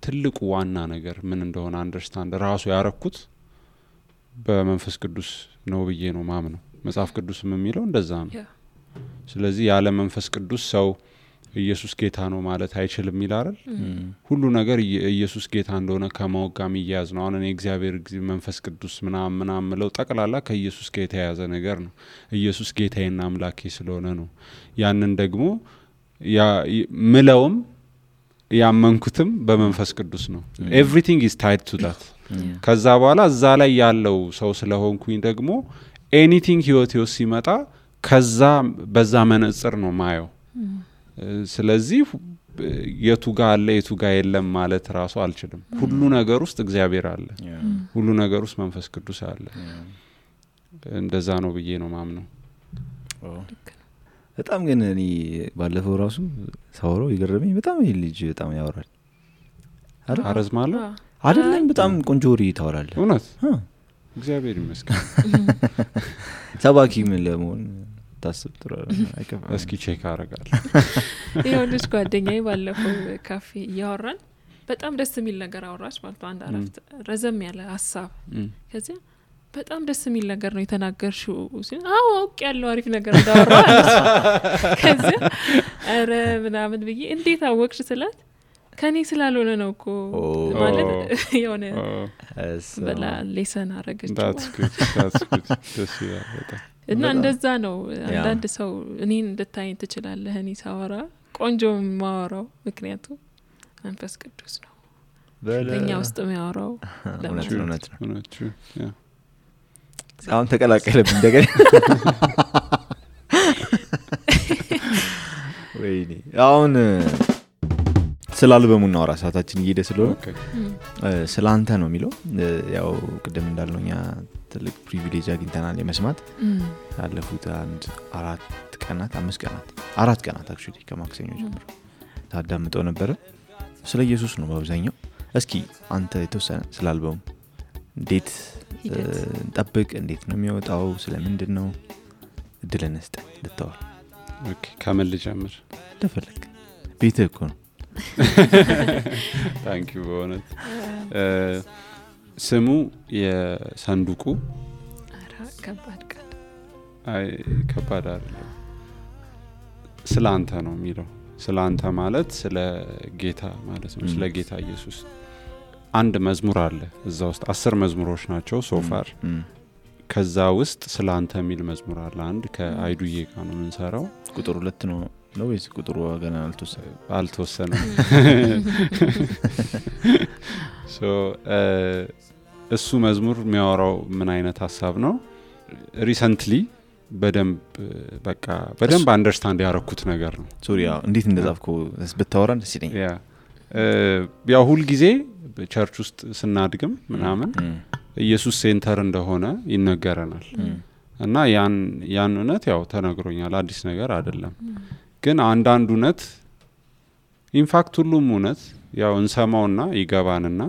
ትልቁ ዋና ነገር ምን እንደሆነ አንደርስታንድ ራሱ ያረኩት በመንፈስ ቅዱስ ነው ብዬ ነው ማምነው። መጽሐፍ ቅዱስም የሚለው እንደዛ ነው። ስለዚህ ያለ መንፈስ ቅዱስ ሰው ኢየሱስ ጌታ ነው ማለት አይችልም ይላል። ሁሉ ነገር ኢየሱስ ጌታ እንደሆነ ከማወቃም ይያዝ ነው። አሁን እኔ እግዚአብሔር መንፈስ ቅዱስ ምናምን ምለው ጠቅላላ ከኢየሱስ ጌታ የያዘ ነገር ነው። ኢየሱስ ጌታዬና አምላኬ ስለሆነ ነው። ያንን ደግሞ ምለውም ያመንኩትም በመንፈስ ቅዱስ ነው። ኤቭሪቲንግ ኢዝ ታይድ ቱ ዳት። ከዛ በኋላ እዛ ላይ ያለው ሰው ስለሆንኩኝ ደግሞ ኤኒቲንግ ህይወቴ ውስጥ ሲመጣ ከዛ በዛ መነጽር ነው ማየው። ስለዚህ የቱ ጋር አለ የቱ ጋር የለም ማለት ራሱ አልችልም። ሁሉ ነገር ውስጥ እግዚአብሔር አለ። ሁሉ ነገር ውስጥ መንፈስ ቅዱስ አለ። እንደዛ ነው ብዬ ነው ማምነው። በጣም ግን እኔ ባለፈው ራሱ ሳወራው ይገርመኝ በጣም ይሄ ልጅ በጣም ያወራል አረዝማለሁ አይደለም በጣም ቆንጆ ወሬ ታወራለህ። እውነት እግዚአብሔር ይመስገን። ሰባኪ ምን ለመሆን ታስብ ጥሩ አይከፋም። እስኪ ቼክ አረጋለሁ። ይሄው ልጅ ጓደኛዬ ባለፈው ካፌ ያወራን በጣም ደስ የሚል ነገር አወራች ማለት አንድ አረፍት ረዘም ያለ ሐሳብ ከዚያ በጣም ደስ የሚል ነገር ነው የተናገርሽው ሲል አዎ አውቅ ያለው አሪፍ ነገር እንዳወራ ከዚያ አረ ምናምን ብዬ እንዴት አወቅሽ ስላት ከኔ ስላልሆነ ነው እኮ ማለት የሆነ በላ ሌሰን አረጋች። that's good ደስ ይላል በጣም። እና እንደዛ ነው አንዳንድ ሰው እኔን እንድታይኝ ትችላለህ እኔ ሳወራ ቆንጆ ማወራው ምክንያቱም መንፈስ ቅዱስ ነው በእኛ ውስጥ የሚያወራው ለእውነት ነው። አሁን ተቀላቀለብኝ እንደገና ወይኔ አሁን ስላልበሙ እናወራ ሰዓታችን እየሄደ ስለሆነ ስላንተ ነው የሚለው ያው ቅድም እንዳልነውኛ ትልቅ ፕሪቪሌጅ አግኝተናል የመስማት ያለፉት 4 ቀናት 5 ቀናት 4 ቀናት አክቹሊ ከማክሰኞ ጀምሮ ታዳምጠው ነበር። ስለ ኢየሱስ ነው በአብዛኛው። እስኪ አንተ የተወሰነ ስላልበሙ እንዴት እንጠብቅ እንዴት ነው የሚወጣው ስለምንድነው እድል እንስጥ ልተዋል። ኦኬ ከመል ጀምር ተፈልክ ቤትህ እኮ ነው። ታንክ ዩ በእውነት ስሙ የሰንዱቁ ከባድ ቃል አይ ከባድ አይደለም ስለ አንተ ነው የሚለው። ስለ አንተ ማለት ስለ ጌታ ማለት ነው። ስለ ጌታ ኢየሱስ አንድ መዝሙር አለ እዛ ውስጥ 10 መዝሙሮች ናቸው ሶፋር። ከዛ ውስጥ ስለ አንተ የሚል መዝሙር አለ። አንድ ከአይዱዬ ጋር ነው የምንሰራው። ቁጥር 2 ነው ወይስ ቁጥሩ ገና አልተወሰነም? እሱ መዝሙር የሚያወራው ምን አይነት ሀሳብ ነው? ሪሰንትሊ በደንብ አንደርስታንድ ያረኩት ነገር ነው። ሶሪያ እንዴት እንደጻፍከው ብታወራን ደስ ይለኛል። ያው ሁል ጊዜ በቸርች ውስጥ ስናድግም ምናምን ኢየሱስ ሴንተር እንደሆነ ይነገረናል እና ያን እውነት ያው ተነግሮኛል፣ አዲስ ነገር አይደለም። ግን አንዳንድ እውነት ኢንፋክት ሁሉም እውነት ያው እንሰማውና ይገባንና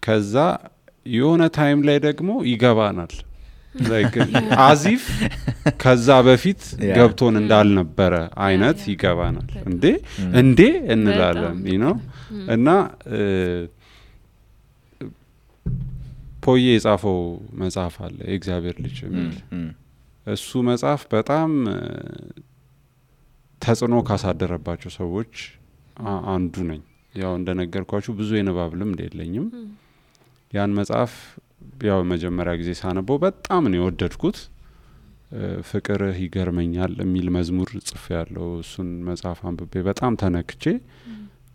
ከዛ የሆነ ታይም ላይ ደግሞ ይገባናል like አዚፍ ከዛ በፊት ገብቶን እንዳልነበረ አይነት ይገባናል። እንዴ እንላለን እና ፖዬ የጻፈው መጽሐፍ አለ የእግዚአብሔር ልጅ የሚል። እሱ መጽሐፍ በጣም ተጽዕኖ ካሳደረባቸው ሰዎች አንዱ ነኝ። ያው እንደነገርኳችሁ ብዙ የንባብ ልምድ የለኝም። ያን መጽሐፍ ያው መጀመሪያ ጊዜ ሳነበው በጣም ነው የወደድኩት። ፍቅርህ ይገርመኛል የሚል መዝሙር ጽፌያለሁ። እሱን መጽሐፍ አንብቤ በጣም ተነክቼ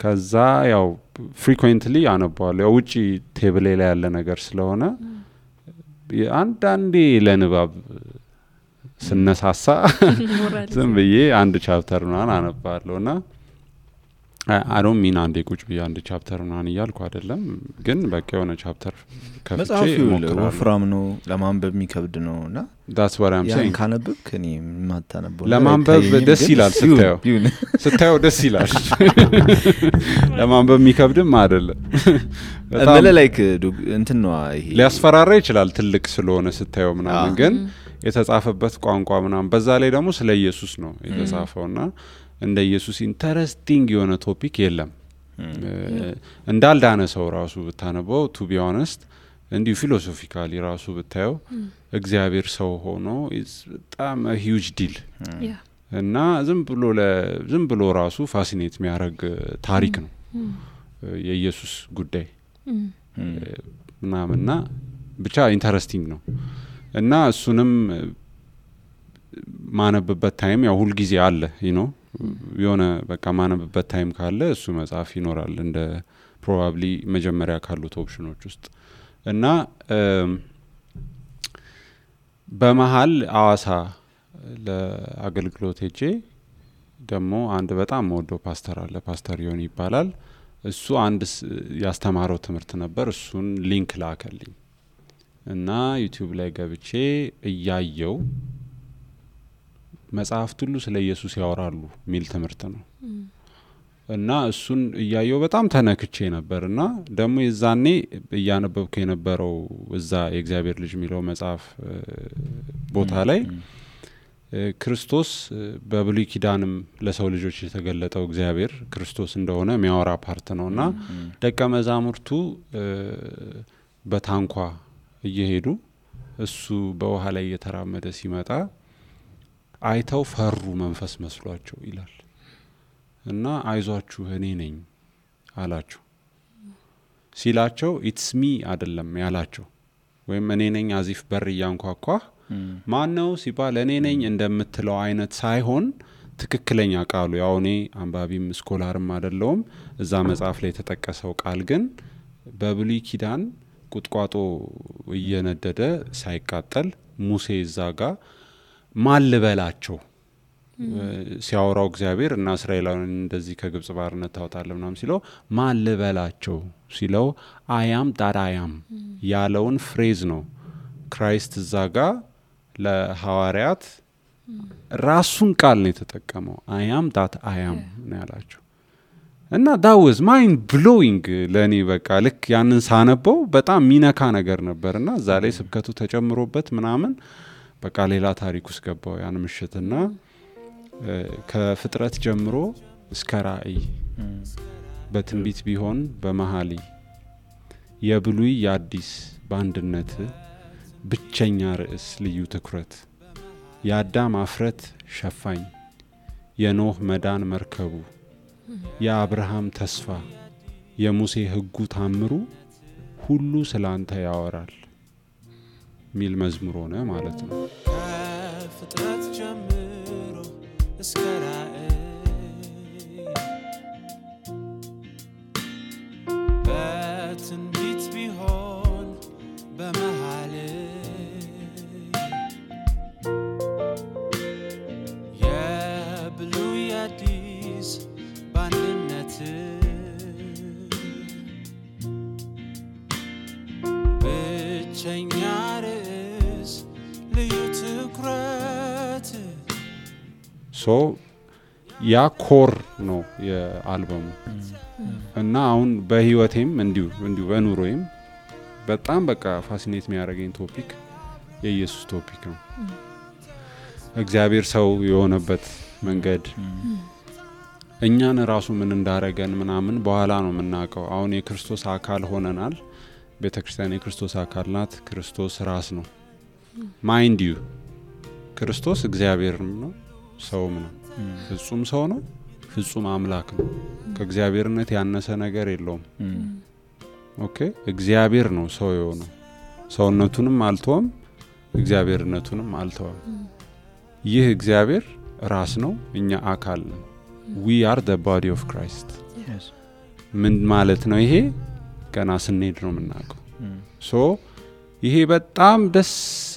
ከዛ ያው ፍሪኩዌንትሊ አነባዋለሁ። ያው ውጪ ቴብል ላይ ያለ ነገር ስለሆነ አንዳንዴ ለንባብ ስነሳሳ ዝም ብዬ አንድ ቻፕተር ምናምን አነባለሁና I don't mean አንዴ ቁጭ ብዬ አንድ ቻፕተር ምናምን እያልኩ አይደለም፣ ግን በቃ የሆነ ቻፕተር ከፍቼ ሞክራለሁ። ወፍራም ነው ለማንበብ የሚከብድ ነውና that's what I'm saying። ካነበብክ እኔ ማታነበው ለማንበብ ደስ ይላል፣ ስታየው ደስ ይላል። ለማንበብ የሚከብድም አይደለም። በጣም ላይክ እንትን ነው ይሄ ሊያስፈራራ ይችላል ትልቅ ስለሆነ ስታየው ምናምን፣ ግን የተጻፈበት ቋንቋ ምናምን በዛ ላይ ደግሞ ስለ ኢየሱስ ነው የተጻፈውና እንደ ኢየሱስ ኢንተረስቲንግ የሆነ ቶፒክ የለም። እንዳልዳነ ሰው ራሱ ብታነበው ቱ ቢ ኦነስት እንዲሁ ፊሎሶፊካሊ ራሱ ብታየው እግዚአብሔር ሰው ሆኖ በጣም ሂውጅ ዲል እና ዝም ብሎ ራሱ ፋሲኔት የሚያደርግ ታሪክ ነው የኢየሱስ ጉዳይ ምናምንና ብቻ ኢንተረስቲንግ ነው እና እሱንም ማነብበት ታይም ያው ሁል ጊዜ አለ የሆነ በቃ ማነብበት ታይም ካለ እሱ መጽሐፍ ይኖራል እንደ ፕሮባብሊ መጀመሪያ ካሉት ኦፕሽኖች ውስጥ እና በመሃል አዋሳ ለአገልግሎት ሄጄ ደግሞ አንድ በጣም ወዶ ፓስተር አለ፣ ፓስተር ዮኒ ይባላል። እሱ አንድ ያስተማረው ትምህርት ነበር። እሱን ሊንክ ላከልኝ እና ዩቲዩብ ላይ ገብቼ እያየው መጽሐፍት ሁሉ ስለ ኢየሱስ ያወራሉ ሚል ትምህርት ነው እና እሱን እያየው በጣም ተነክቼ ነበርና ደግሞ የዛኔ እያነበብኩ የነበረው እዛ የእግዚአብሔር ልጅ የሚለው መጽሐፍ ቦታ ላይ ክርስቶስ በብሉይ ኪዳንም ለሰው ልጆች የተገለጠው እግዚአብሔር ክርስቶስ እንደሆነ የሚያወራ ፓርት ነውና ደቀ መዛሙርቱ በታንኳ እየሄዱ እሱ በውሃ ላይ እየተራመደ ሲመጣ አይተው ፈሩ፣ መንፈስ መስሏቸው ይላል እና አይዟችሁ እኔ ነኝ አላቸው። ሲላቸው ኢትስ ሚ አይደለም ያላቸው፣ ወይም እኔ ነኝ አዚፍ በር እያንኳኳ ማን ነው ሲባል እኔ ነኝ እንደምትለው አይነት ሳይሆን ትክክለኛ ቃሉ ያው እኔ አንባቢም ስኮላርም አይደለሁም። እዛ መጽሐፍ ላይ የተጠቀሰው ቃል ግን በብሉይ ኪዳን ቁጥቋጦ እየነደደ ሳይቃጠል ሙሴ እዛጋ ማልበላቸው ሲያወራው እግዚአብሔር እና እስራኤላውያን እንደዚህ ከግብጽ ባርነት ታወጣለህ ምናምን ሲለው ማልበላቸው ሲለው አያም ዳዳያም ያለውን ፍሬዝ ነው ክራይስት እዛጋ ለሐዋርያት ራሱን ቃል ነው የተጠቀመው። አያም ዳት አያም ነው ያላቸው እና that was mind blowing ለኔ በቃ ልክ ያንን ሳነበው በጣም ሚነካ ነገር ነበርና እዛ ላይ ስብከቱ ተጨምሮበት ምናምን በቃ ሌላ ታሪክ ውስጥ ገባው ያን ምሽትና ከፍጥረት ጀምሮ እስከ ራእይ በትንቢት ቢሆን በመሐሊ የብሉይ የአዲስ በአንድነት ብቸኛ ርዕስ ልዩ ትኩረት የአዳም አፍረት ሸፋኝ የኖህ መዳን መርከቡ የአብርሃም ተስፋ የሙሴ ሕጉ ታምሩ ሁሉ ስላንተ ያወራል ሚል መዝሙር ሆነ ማለት ነው። ከፍጥረት ጀምሮ እስከ ራእይ በትንቢት ቢሆን በመሃል የብሉይ አዲስ በአንድነት ብቸኛ ርዕስ ልዩ ትኩረት ሶ ያ ኮር ነው የአልበሙ እና አሁን በህይወቴም እንዲሁ በኑሮዬም በጣም በቃ ፋሲኔት የሚያደርገኝ ቶፒክ የኢየሱስ ቶፒክ ነው። እግዚአብሔር ሰው የሆነበት መንገድ እኛን ራሱ ምን እንዳረገን ምናምን በኋላ ነው የምናውቀው። አሁን የክርስቶስ አካል ሆነናል። ቤተክርስቲያን የክርስቶስ አካል ናት። ክርስቶስ ራስ ነው። ማይንድ ዩ ክርስቶስ እግዚአብሔርም ነው ሰውም ነው። ፍጹም ሰው ነው፣ ፍጹም አምላክ ነው። ከእግዚአብሔርነት ያነሰ ነገር የለውም። ኦኬ እግዚአብሔር ነው ሰው የሆነው። ሰውነቱንም አልተወም፣ እግዚአብሔርነቱንም አልተወም። ይህ እግዚአብሔር ራስ ነው፣ እኛ አካል ነው። we are the body of Christ። ምን ማለት ነው ይሄ? ገና ስንሄድ ነው የምናውቀው። ሶ ይሄ በጣም ደስ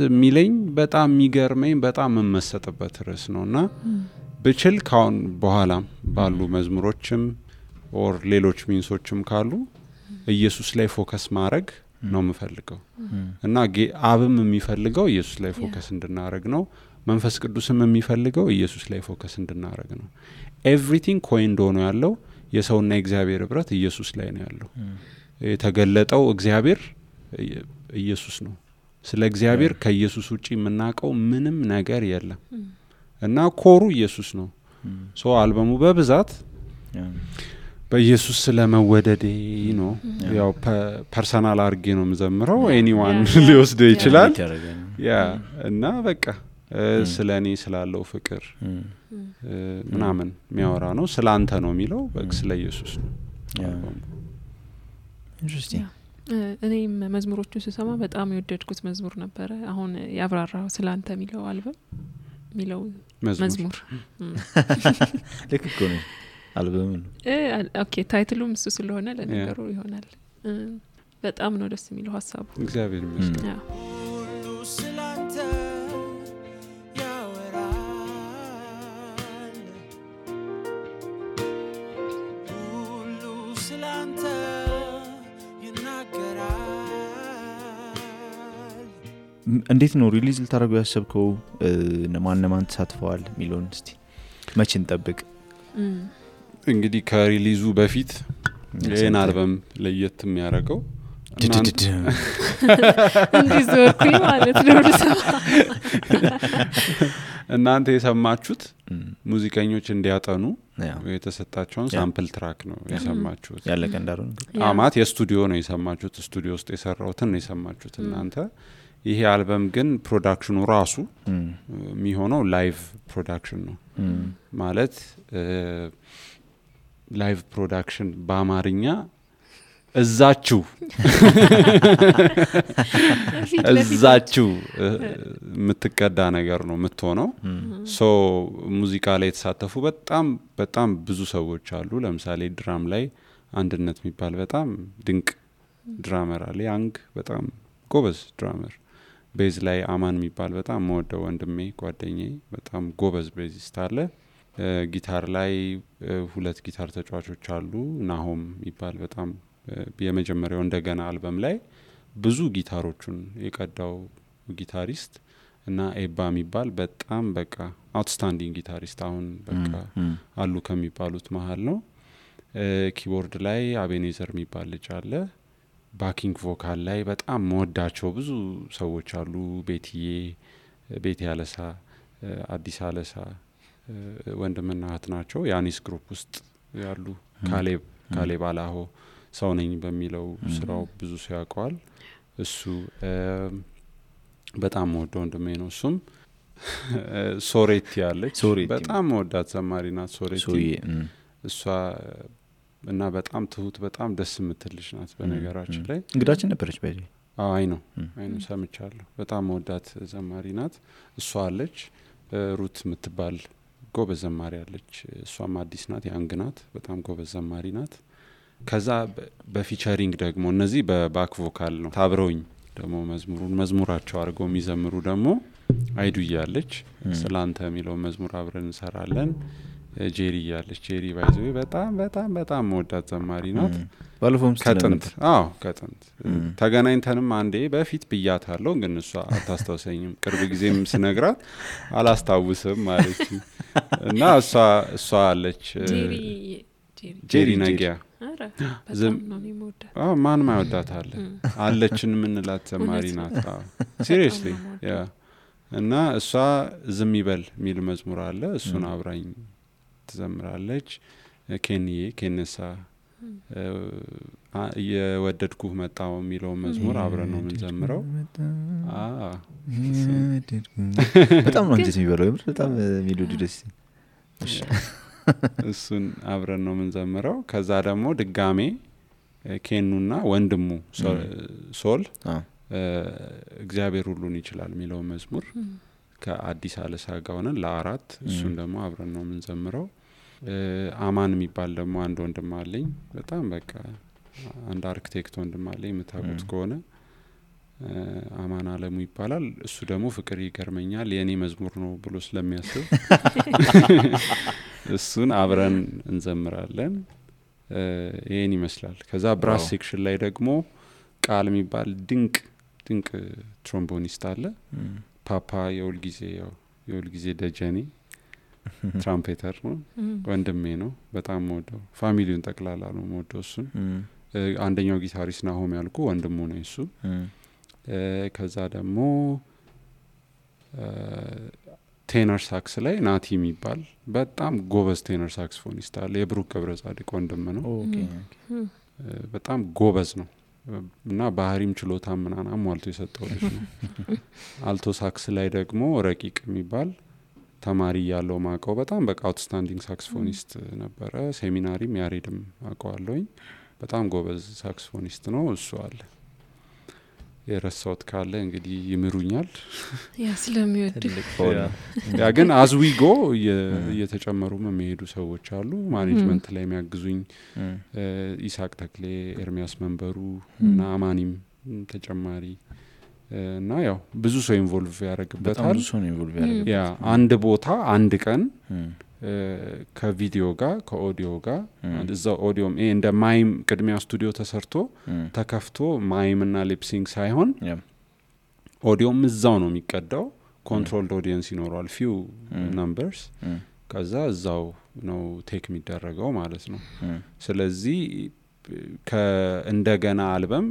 የሚለኝ በጣም የሚገርመኝ በጣም መመሰጥበት ርዕስ ነውና ብችል ካሁን በኋላም ባሉ መዝሙሮችም ኦር ሌሎች ሚንሶችም ካሉ ኢየሱስ ላይ ፎከስ ማድረግ ነው የምፈልገው እና አብም የሚፈልገው ኢየሱስ ላይ ፎከስ እንድናረግ ነው። መንፈስ ቅዱስም የሚፈልገው ኢየሱስ ላይ ፎከስ እንድናረግ ነው። ኤቭሪቲንግ ኮይንድ ሆኖ ያለው የሰውና የእግዚአብሔር ህብረት ኢየሱስ ላይ ነው ያለው። የተገለጠው እግዚአብሔር ኢየሱስ ነው። ስለ እግዚአብሔር ከኢየሱስ ውጪ የምናውቀው ምንም ነገር የለም እና ኮሩ ኢየሱስ ነው። ሶ አልበሙ በብዛት በኢየሱስ ስለመወደዴ ነው። ያው ፐርሰናል አርጌ ነው የምዘምረው። ኤኒዋን ሊወስደው ይችላል። ያ እና በቃ ስለኔ ስላለው ፍቅር ምናምን የሚያወራ ነው። ስላንተ ነው የሚለው በቃ ስለ ኢየሱስ ነው። ኢንትረስቲንግ። እኔም መዝሙሮቹን ስሰማ በጣም የወደድኩት መዝሙር ነበረ። አሁን ያብራራው ስላንተ የሚለው አልበም የሚለው መዝሙር ልክ እኮ ነው አልበሙ። ኦኬ ታይትሉም እሱ ስለሆነ ለነገሩ ይሆናል። በጣም ነው ደስ የሚለው ሀሳቡ። እግዚአብሔር ይመስገን። ሁሉ ስላንተ ያወራል ሁሉ ስላንተ ይናገራል። እንዴት ነው ሪሊዝ ልታደርገው ያሰብከው? ማን ተሳትፈዋል የሚለውን እስቲ መቼ እንጠብቅ? እንግዲህ ከሪሊዙ በፊት ይሄን አልበም ለየት የሚያደርገው እንዲዞርኩኝ ማለት ነው። እናንተ የሰማችሁት ሙዚቀኞች እንዲያጠኑ የተሰጣቸውን ሳምፕል ትራክ ነው የሰማችሁት። ያለቀ እንዳልሆነ አማት የስቱዲዮ ነው የሰማችሁት። ስቱዲዮ ውስጥ የሰራውትን ነው የሰማችሁት እናንተ። ይሄ አልበም ግን ፕሮዳክሽኑ ራሱ የሚሆነው ላይቭ ፕሮዳክሽን ነው ማለት ላይቭ ፕሮዳክሽን በአማርኛ እዛችሁ የምትቀዳ ነገር ነው የምትሆነው። ሶ ሙዚቃ ላይ የተሳተፉ በጣም ብዙ ሰዎች አሉ። ለምሳሌ ድራም ላይ አንድነት የሚባል በጣም ድንቅ ድራመር አለ። ያንግ በጣም ጎበዝ ድራመር። ቤዝ ላይ አማን የሚባል በጣም መወደው ወንድሜ ጓደኛዬ በጣም ጎበዝ ቤዚስት አለ። ጊታር ላይ ሁለት ጊታር ተጫዋቾች አሉ። ናሆም የሚባል በጣም የመጀመሪያው እንደገና አልበም ላይ ብዙ ጊታሮቹን የቀዳው ጊታሪስት እና ኤባ የሚባል በጣም በቃ አውትስታንዲንግ ጊታሪስት አሁን በቃ አሉ ከሚባሉት መሃል ነው። ኪቦርድ ላይ አቤኔዘር የሚባል ልጅ አለ። ባኪንግ ቮካል ላይ በጣም መወዳቸው ብዙ ሰዎች አሉ። ቤቴ ያለሳ፣ አዲስ አለሳ ወንድምና እህት ናቸው። ያኒስ ግሩፕ ውስጥ ያሉ ካሌብ አላሆ ሰው ነኝ በሚለው ስራው ብዙ ሰው ያውቀዋል። እሱ በጣም ወደው ወንድሜ ነው። እሱም ሶሬቲ ያለች ሶሬቲ በጣም ወዳት ዘማሪ ናት ሶሬቲ እሷ እና በጣም ትሁት በጣም ደስ የምትልሽ ናት በነገራችን ላይ እንግዳችን ነበረች ባይ አይ ነው ሰምቻለሁ በጣም ወዳት ዘማሪ ናት እሷ አለች ሩት የምትባል ጎበዝ ዘማሪ አለች እሷም አዲስ ናት ያንግ ናት በጣም ጎበዝ ዘማሪ ናት ከዛ በፊቸሪንግ ደግሞ እነዚህ በባክ ቮካል ነው ታብረውኝ ደግሞ መዝሙራቸው አድርገው የሚዘምሩ ደግሞ አይዱ ያለች ስላንተ የሚለው መዝሙር አብረን እንሰራለን ጄሪ ያለች ጄሪ ባይዘው በጣም በጣም በጣም ወዳት ዘማሪ ናት ባለፈውም ከጥንት ከጥንት ተገናኝተንም አንዴ በፊት ብያታለሁ ግን እሷ አታስተውሰኝም ቅርብ ጊዜም ስነግራት አላስታውስም ማለት እና እሷ አለች ጄሪ ነጊያ ማን ማይወዳታል አለችን ምንላት ዘማሪ ናት ሲሪየስሊ ያ እና እሷ ዝም ይበል ሚል መዝሙር አለ እሱን አብራኝ ትዘምራለች ኬነሳ የወደድኩህ መጣው የሚለው መዝሙር አብረን ነው የምንዘምረው በጣም ነው እንጂ የሚበለው በጣም ሜሎዲ ደስ እሱን አብረን ነው የምንዘምረው ከዛ ደግሞ ድጋሜ ኬኑና ወንድሙ ሶል እግዚአብሔር ሁሉን ይችላል የሚለው መዝሙር ከአዲስ አለሳ ጋር ሆነን ለአራት እሱን ደግሞ አብረን ነው የምንዘምረው አማን የሚባል ደግሞ አንድ ወንድም አለኝ በጣም በቃ አንድ አርኪቴክት ወንድም አለኝ የምታውቁት ከሆነ አማን አለሙ ይባላል እሱ ደግሞ ፍቅር ይገርመኛል የኔ መዝሙር ነው ብሎ ስለሚያስብ እሱን አብረን እንዘምራለን ይሄን ይመስላል ከዛ ብራስ ሴክሽን ላይ ደግሞ ቃል የሚባል ድንቅ ትሮምቦኒስት አለ ፓፓ የውል ጊዜ ደጀኔ ትራምፔተር ነው ወንድሜ ነው በጣም ወደው ፋሚሊውን ጠቅላላ ነው ወደው እሱን አንደኛው ጊታሪስት ናሆም ያልኩ ወንድሙ ነው እሱ ከዛ ደግሞ ቴነር ሳክስ ላይ ናቲ የሚባል በጣም ጎበዝ ቴነር ሳክስፎኒስት አለ የብሩክ ገብረጻድቅ ወንድም ነው በጣም ጎበዝ ነው እና ባህሪም ችሎታም ምናምን አሟልቶ የሰጠው ልጅ ነው አልቶ ሳክስ ላይ ደግሞ ረቂቅ የሚባል ተማሪ ያለው ማቀው በጣም በቃ አውትስታንዲንግ ሳክስፎኒስት ነበረ ሴሚናሪም ያሬድም አቀዋለሁኝ በጣም ጎበዝ ሳክስፎኒስት ነው እሱ አለ የረሳውት ካለ እንግዲህ ይምሩኛል ያ ስለሚወድ ያ ግን አዝዊጎ እየተጨመሩ የሚሄዱ ሰዎች አሉ ማኔጅመንት ላይ የሚያግዙኝ ኢሳቅ ተክሌ ኤርሚያስ መንበሩ እና አማኒም ተጨማሪ እና ያው ብዙ ሰው ኢንቮልቭ ያደርግበታል ያ አንድ ቦታ አንድ ቀን ከቪዲዮ ጋር ከኦዲዮ ጋር እዛው ኦዲዮም እንደ ማይም ቅድሚያ ስቱዲዮ ተሰርቶ ተከፍቶ ማይምና ሊፕሲንግ ሳይሆን ኦዲዮም እዛው ነው የሚቀዳው ኮንትሮልድ ኦዲየንስ ይኖራል ፊው ነምበርስ ከዛ እዛው ነው ቴክ የሚደረገው ማለት ነው ስለዚህ ከእንደገና አልበም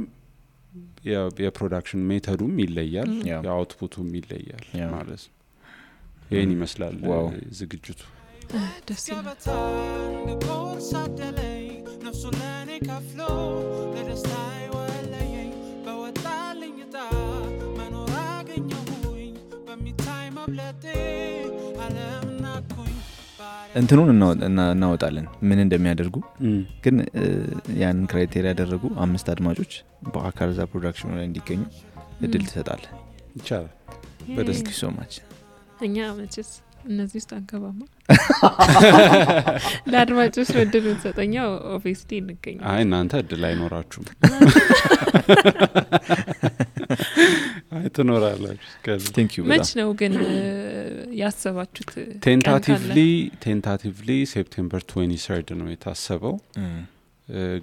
የፕሮዳክሽን ሜተዱም ይለያል የአውትፑቱም ይለያል ማለት ነው ይሄን ይመስላል ዝግጅቱ ደስ ይላል ኮርስ አደለኝ ነፍሱ ለኔ ከፍሎ ለደስታዬ ወለየኝ በወጣልኝ ዕጣ መኖር አገኘሁኝ በሚታይ መብለጤ ዓለም ናኩኝ እንትኑን እናወጣለን ምን እንደሚያደርጉ ግን ያንን ክራይቴሪያ ያደረጉ 5 አድማጮች በአካል ዛ ፕሮዳክሽኑ ላይ እንዲገኙ እድል ትሰጣለህ ይቻላል በደስታ ሶማች እኛ መቼስ እነዚህ ውስጥ አንገባማ ለአድማጮች እድል እንሰጠኛው ኦፊስሊ እንገኝ አይ እናንተ እድል አይኖራችሁም አይ ትኖራላችሁ መች ነው ግን ያሰባችሁት ቴንታቲቭሊ ሴፕቴምበር 23 ነው የታሰበው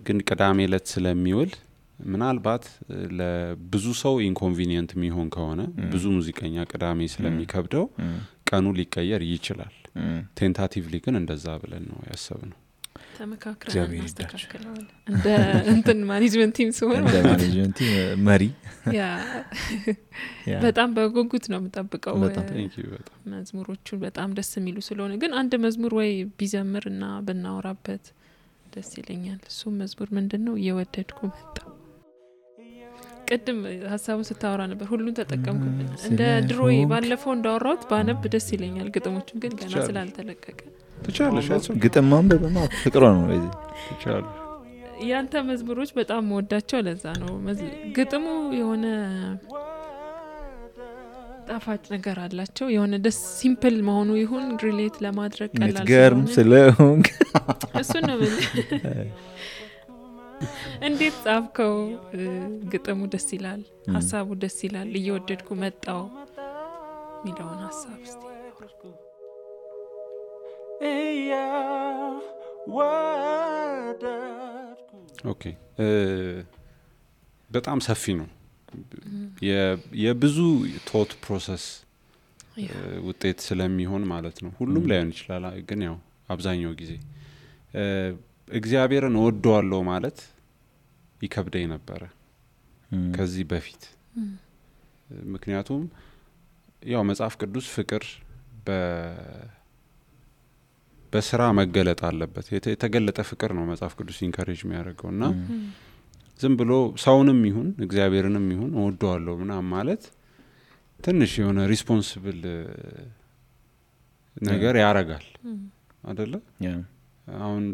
ግን ቅዳሜ ዕለት ስለሚውል ምናልባት ለብዙ ሰው ኢንኮንቪኒየንት የሚሆን ከሆነ ብዙ ሙዚቀኛ ቅዳሜ ስለሚከብደው ቀኑ ሊቀየር ይችላል ቴንታቲቭሊ ግን እንደዛ ብለን ነው ያሰብነው ተመካክረን እናስተካክለዋለን እንደ እንትን ማኔጅመንት ቲም ሲሆን እንደ ማኔጅመንት መሪ ያ በጣም በጉጉት ነው የምጠብቀው በጣም መዝሙሮቹ በጣም ደስ የሚሉ ስለሆነ ግን አንድ መዝሙር ወይ ቢዘምርና ብናወራበት ደስ ይለኛል እሱ መዝሙር ምንድነው የወደድኩ መጣ ቅድም ሀሳቡን ስታወራ ነበር ሁሉን ተጠቀምኩብን እንደ ድሮይ ባለፈው እንዳወራሁት ባነብ ደስ ይለኛል ግጥሞቹን ግን ገና ስላልተለቀቀ ትቻለሽ ግጥም ማንበብማ ፍቅሯ ነው ለዚህ ትቻለሽ ያንተ መዝሙሮች በጣም ወዳቸው ለዛ ነው ግጥሙ የሆነ ጣፋጭ ነገር አላቸው የሆነ ደስ ሲምፕል መሆኑ ይሁን ሪሌት ለማድረግ ቀላል ምትገርም ስለሆንክ እሱ ነው እንዴት ጻፍከው ግጥሙ ደስ ይላል ሐሳቡ ደስ ይላል እየወደድኩ መጣው ሚለውን ሐሳብ እስቲ ኦኬ በጣም ሰፊ ነው የብዙ ቶት ፕሮሰስ ውጤት ስለሚሆን ማለት ነው ሁሉም ላይሆን ይችላል ግን ያው አብዛኛው ጊዜ እግዚአብሔርን ወደዋለሁ ማለት ይከብደኝ ነበር ከዚህ በፊት ምክንያቱም ያው መጽሐፍ ቅዱስ ፍቅር በስራ መገለጥ አለበት የተገለጠ ፍቅር ነው መጽሐፍ ቅዱስ ኢንካሬጅ የሚያደርገውና ዝም ብሎ ሰውንም ይሁን እግዚአብሔርንም ይሁን ወደዋለሁ ምናምን ማለት ትንሽ የሆነ ሪስፖንሲብል ነገር ያረጋል አይደለ አሁን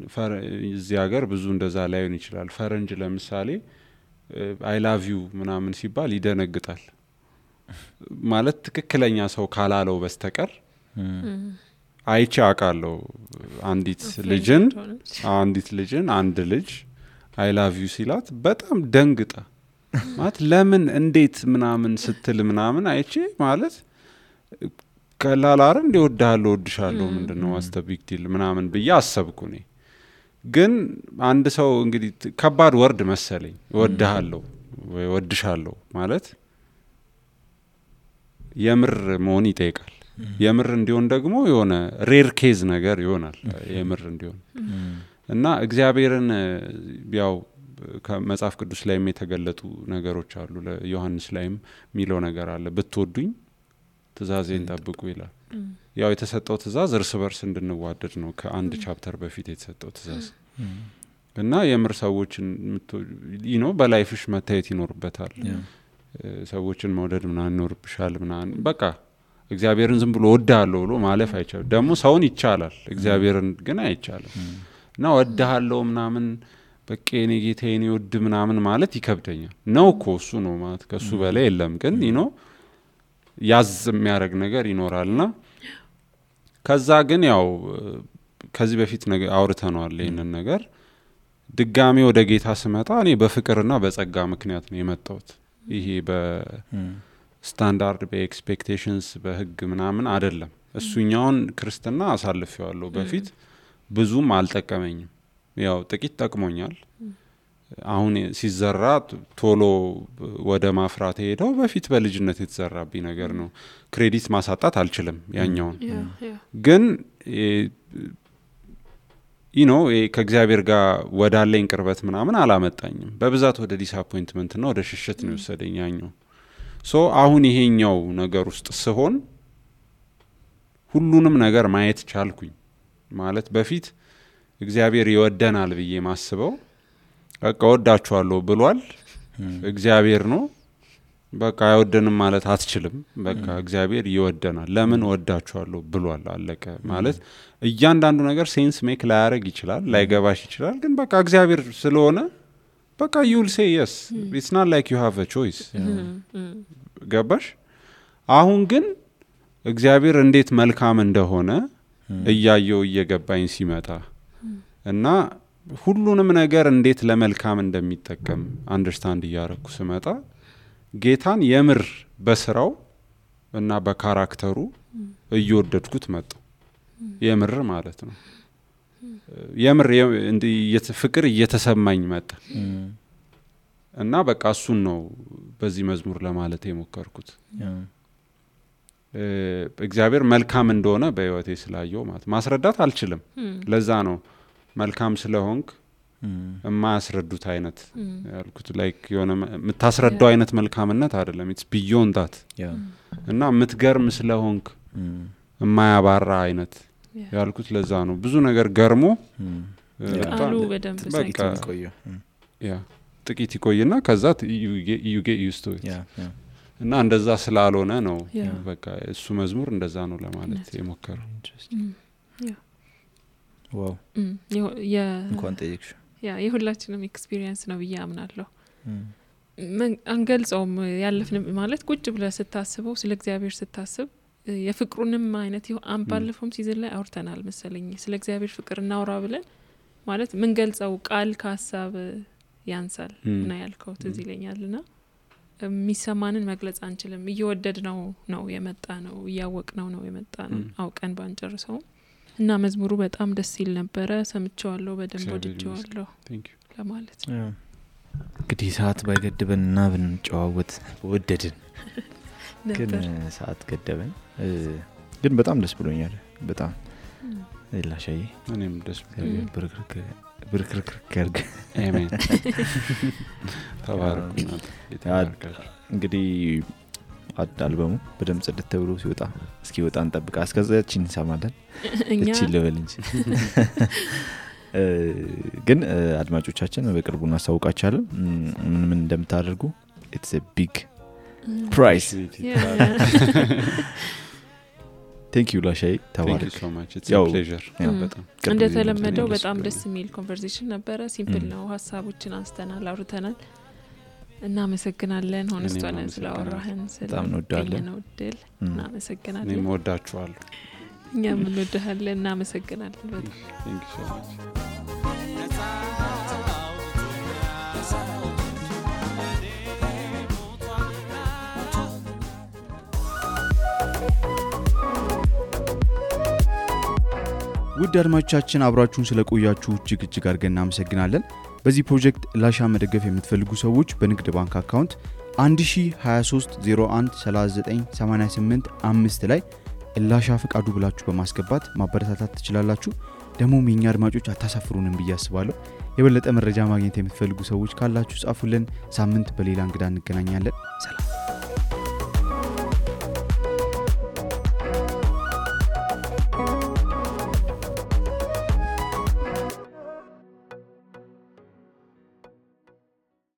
እዚህ ሀገር ብዙ እንደዛ ላይሆን ይችላል ፈረንጅ ለምሳሌ አይ ላቭ ዩ ምናምን ሲባል ይደነግጣል ማለት ትክክለኛ ሰው ካላለው በስተቀር አይቼ አውቃለሁ አንዲት ልጅን አንድ ልጅ አይ ላቭ ዩ ሲላት በጣም ደንግጣ ማለት ለምን እንዴት ምናምን ስትል ምናምን አይቼ ማለት ከላላር እንደወዳለሁ ወድሻለሁ ምንድነው ዋስተ ቢግ ዲል ምናምን ብዬ አሰብኩ ነኝ ግን አንድ ሰው እንግዲህ ከባድ ወርድ መሰለኝ ወድሃለሁ ወይ ወድሻለሁ ማለት የምር መሆን ይጠይቃል የምር እንዲሆን ደግሞ የሆነ ሬር ኬዝ ነገር ይሆናል የምር እንዲሆን እና እግዚአብሔርን ያው ከመጽሐፍ ቅዱስ ላይም የተገለጡ ነገሮች አሉ ለዮሐንስ ላይም ሚለው ነገር አለ ብትወዱኝ ትእዛዜን ጠብቁ ይላል ያው የተሰጠው ትእዛዝ እርስ በርስ እንድንዋደድ ነው ከአንድ ቻፕተር በፊት የተሰጠው ትእዛዝ እና የምር ሰዎችን በላይፍሽ መታየት ይኖርበታል ሰዎችን መውደድ ምናምን ይኖርብሻል ምናምን በቃ እግዚአብሔርን ዝም ብሎ ወዳለው ብሎ ማለፍ አይቻልም ደግሞ ሰውን ይቻላል እግዚአብሔርን ግን አይቻልም እና ወዳለው ምናምን በቃ እኔ ጌታዬን ይወድ ምናምን ማለት ይከብደኛል ነው እኮ እሱ ነው ማለት ከሱ በላይ የለም ግን ያዝ የሚያደርግ ነገር ይኖራልና ከዛ ግን ያው ከዚህ በፊት አውርተናል ይሄንን ነገር ድጋሚ ወደ ጌታ ስመጣ እኔ በፍቅርና በጸጋ ምክንያት ነው የመጣሁት ይሄ በስታንዳርድ በኤክስፔክቴሽንስ በህግ ምናምን አይደለም እሱኛውን ክርስትና አሳልፌዋለሁ በፊት ብዙም አልጠቀመኝም ያው ጥቂት ጠቅሞኛል አሁን ሲዘራ ቶሎ ወደ ማፍራት ሄደው በፊት በልጅነት የተዘራብኝ ነገር ነው ክሬዲት ማሳጣት አልችልም ያኛውን ግን ከእግዚአብሔር ጋር ወዳለኝ ቅርበት ምናምን አላመጣኝም በብዛት ወደ ዲስአፖይንትመንት እና ወደ ሽሽት ነው የወሰደኝ ያኛው አሁን ይሄኛው ነገር ውስጥ ስሆን ሁሉንም ነገር ማየት ቻልኩኝ ማለት በፊት እግዚአብሔር ይወደናል ብዬ ማስበው በቃ ወዳችኋለሁ ብሏል እግዚአብሔር ነው በቃ አይወደንም ማለት አትችልም በቃ እግዚአብሔር ይወደናል ለምን ወዳችኋለሁ ብሏል አለቀ ማለት እያንዳንዱ ነገር ሴንስ ሜክ ላያረግ ይችላል ላይገባሽ ይችላል ግን በቃ እግዚአብሔር ስለሆነ በቃ you will say yes it's not like you have a choice ገባሽ አሁን ግን እግዚአብሔር እንዴት መልካም እንደሆነ እያየው እየገባኝ ሲመጣ እና ሁሉንም ነገር እንዴት ለመልካም እንደሚጠቀም አንደርስታንድ እያረኩ ስመጣ ጌታን የምር በስራው እና በካራክተሩ እየወደድኩት መጣው የምር ማለት ነው የምር ፍቅር እየተሰማኝ መጣ እና በቃ እሱን ነው በዚህ መዝሙር ለማለት የሞከርኩት እግዚአብሔር መልካም እንደሆነ በህይወቴ ስላየው ማለት ማስረዳት አልችልም ለዛ ነው መልካም ስለሆንክ የማያስረዱት አይነት ያልኩት ላይክ የሆነ የምታስረዳው አይነት መልካምነት አይደለም it's beyond that እና የምትገርም ስለሆንክ የማያባራ አይነት ያልኩት ለዛ ነው ብዙ ነገር ገርሞ ቃሉ በደንብ ሳይቆየው ጥቂት ይቆይና ከዛ you get used to it እና እንደዛ ስላልሆነ ነው በቃ እሱ መዝሙር እንደዛ ነው ለማለት የሞከረው ዋው እንኳን ጠይቅሽ የሁላችንም ኤክስፒሪየንስ ነው ብዬ አምናለሁ አንገልጸውም ያለፍን ማለት ቁጭ ብለህ ስታስበው ስለ እግዚአብሔር ስታስብ የፍቅሩንም አይነት ባለፈውም ሲዝን ላይ አውርተናል መሰለኝ ስለ እግዚአብሔር ፍቅር እናውራ ብለን ማለት ምን ገልጸው ቃል ከሐሳብ ያንሳል እና ያልከው ትዝ ይለኛልና የሚሰማንን መግለጽ አንችልም እየወደድ ነው የመጣ ነው እያወቅነው ነው የመጣ ነው አውቀን ባንጨርሰው እና መዝሙሩ በጣም ደስ ይል ነበረ ሰምቼዋለሁ በደንብ ወድጄዋለሁ ለማለት ነው እንግዲህ ሰዓት ባይገድበንና ብንጨዋወት ወደድን ግን ሰዓት ገደበን ግን በጣም ደስ ብሎኛል በጣም ላሻዬ እኔም ደስ ብሎኛል ብርክርክ ያርግ አሜን ተባረኩና እንግዲህ አልበሙ በደም ጽድት ተብሎ ሲወጣ እንጠብቃ እስከዛችን እንሰማለን እቺ ለበል እንጂ ግን አድማጮቻችን በቅርቡ እናሳውቃችኋለን ምን እንደምታደርጉ it's a big prize thank you ላሻይ thank you so much it's a pleasure በጣም እንደተለመደው በጣም ደስ የሚል ኮንቨርሴሽን ነበረ ሲምፕል ነው ሐሳቦችን አንስተናል አውርተናል እናመሰግናለን ሆነስቷን ስለአወራህን በጣም እንወዳለን እናመሰግናለን እኔም ወዳችኋለሁ እኛም እንወዳለን እናመሰግናለን በጣም thank you so much ውድ አድማጮቻችን አብራችሁን ስለቆያችሁ እጅግ አድርገን እናመሰግናለን በዚህ ፕሮጀክት ላሻ መደገፍ የምትፈልጉ ሰዎች በንግድ ባንክ አካውንት 1023013988 ላይ ላሻ ፍቃዱ ብላችሁ በማስገባት ማበረታታት ትችላላችሁ ደሞም የኛ አድማጮች አታሳፍሩንም ብዬ አስባለሁ የበለጠ መረጃ ማግኘት የምትፈልጉ ሰዎች ካላችሁ ጻፉልን ሳምንት በሌላ እንግዳ እንገናኛለን ሰላም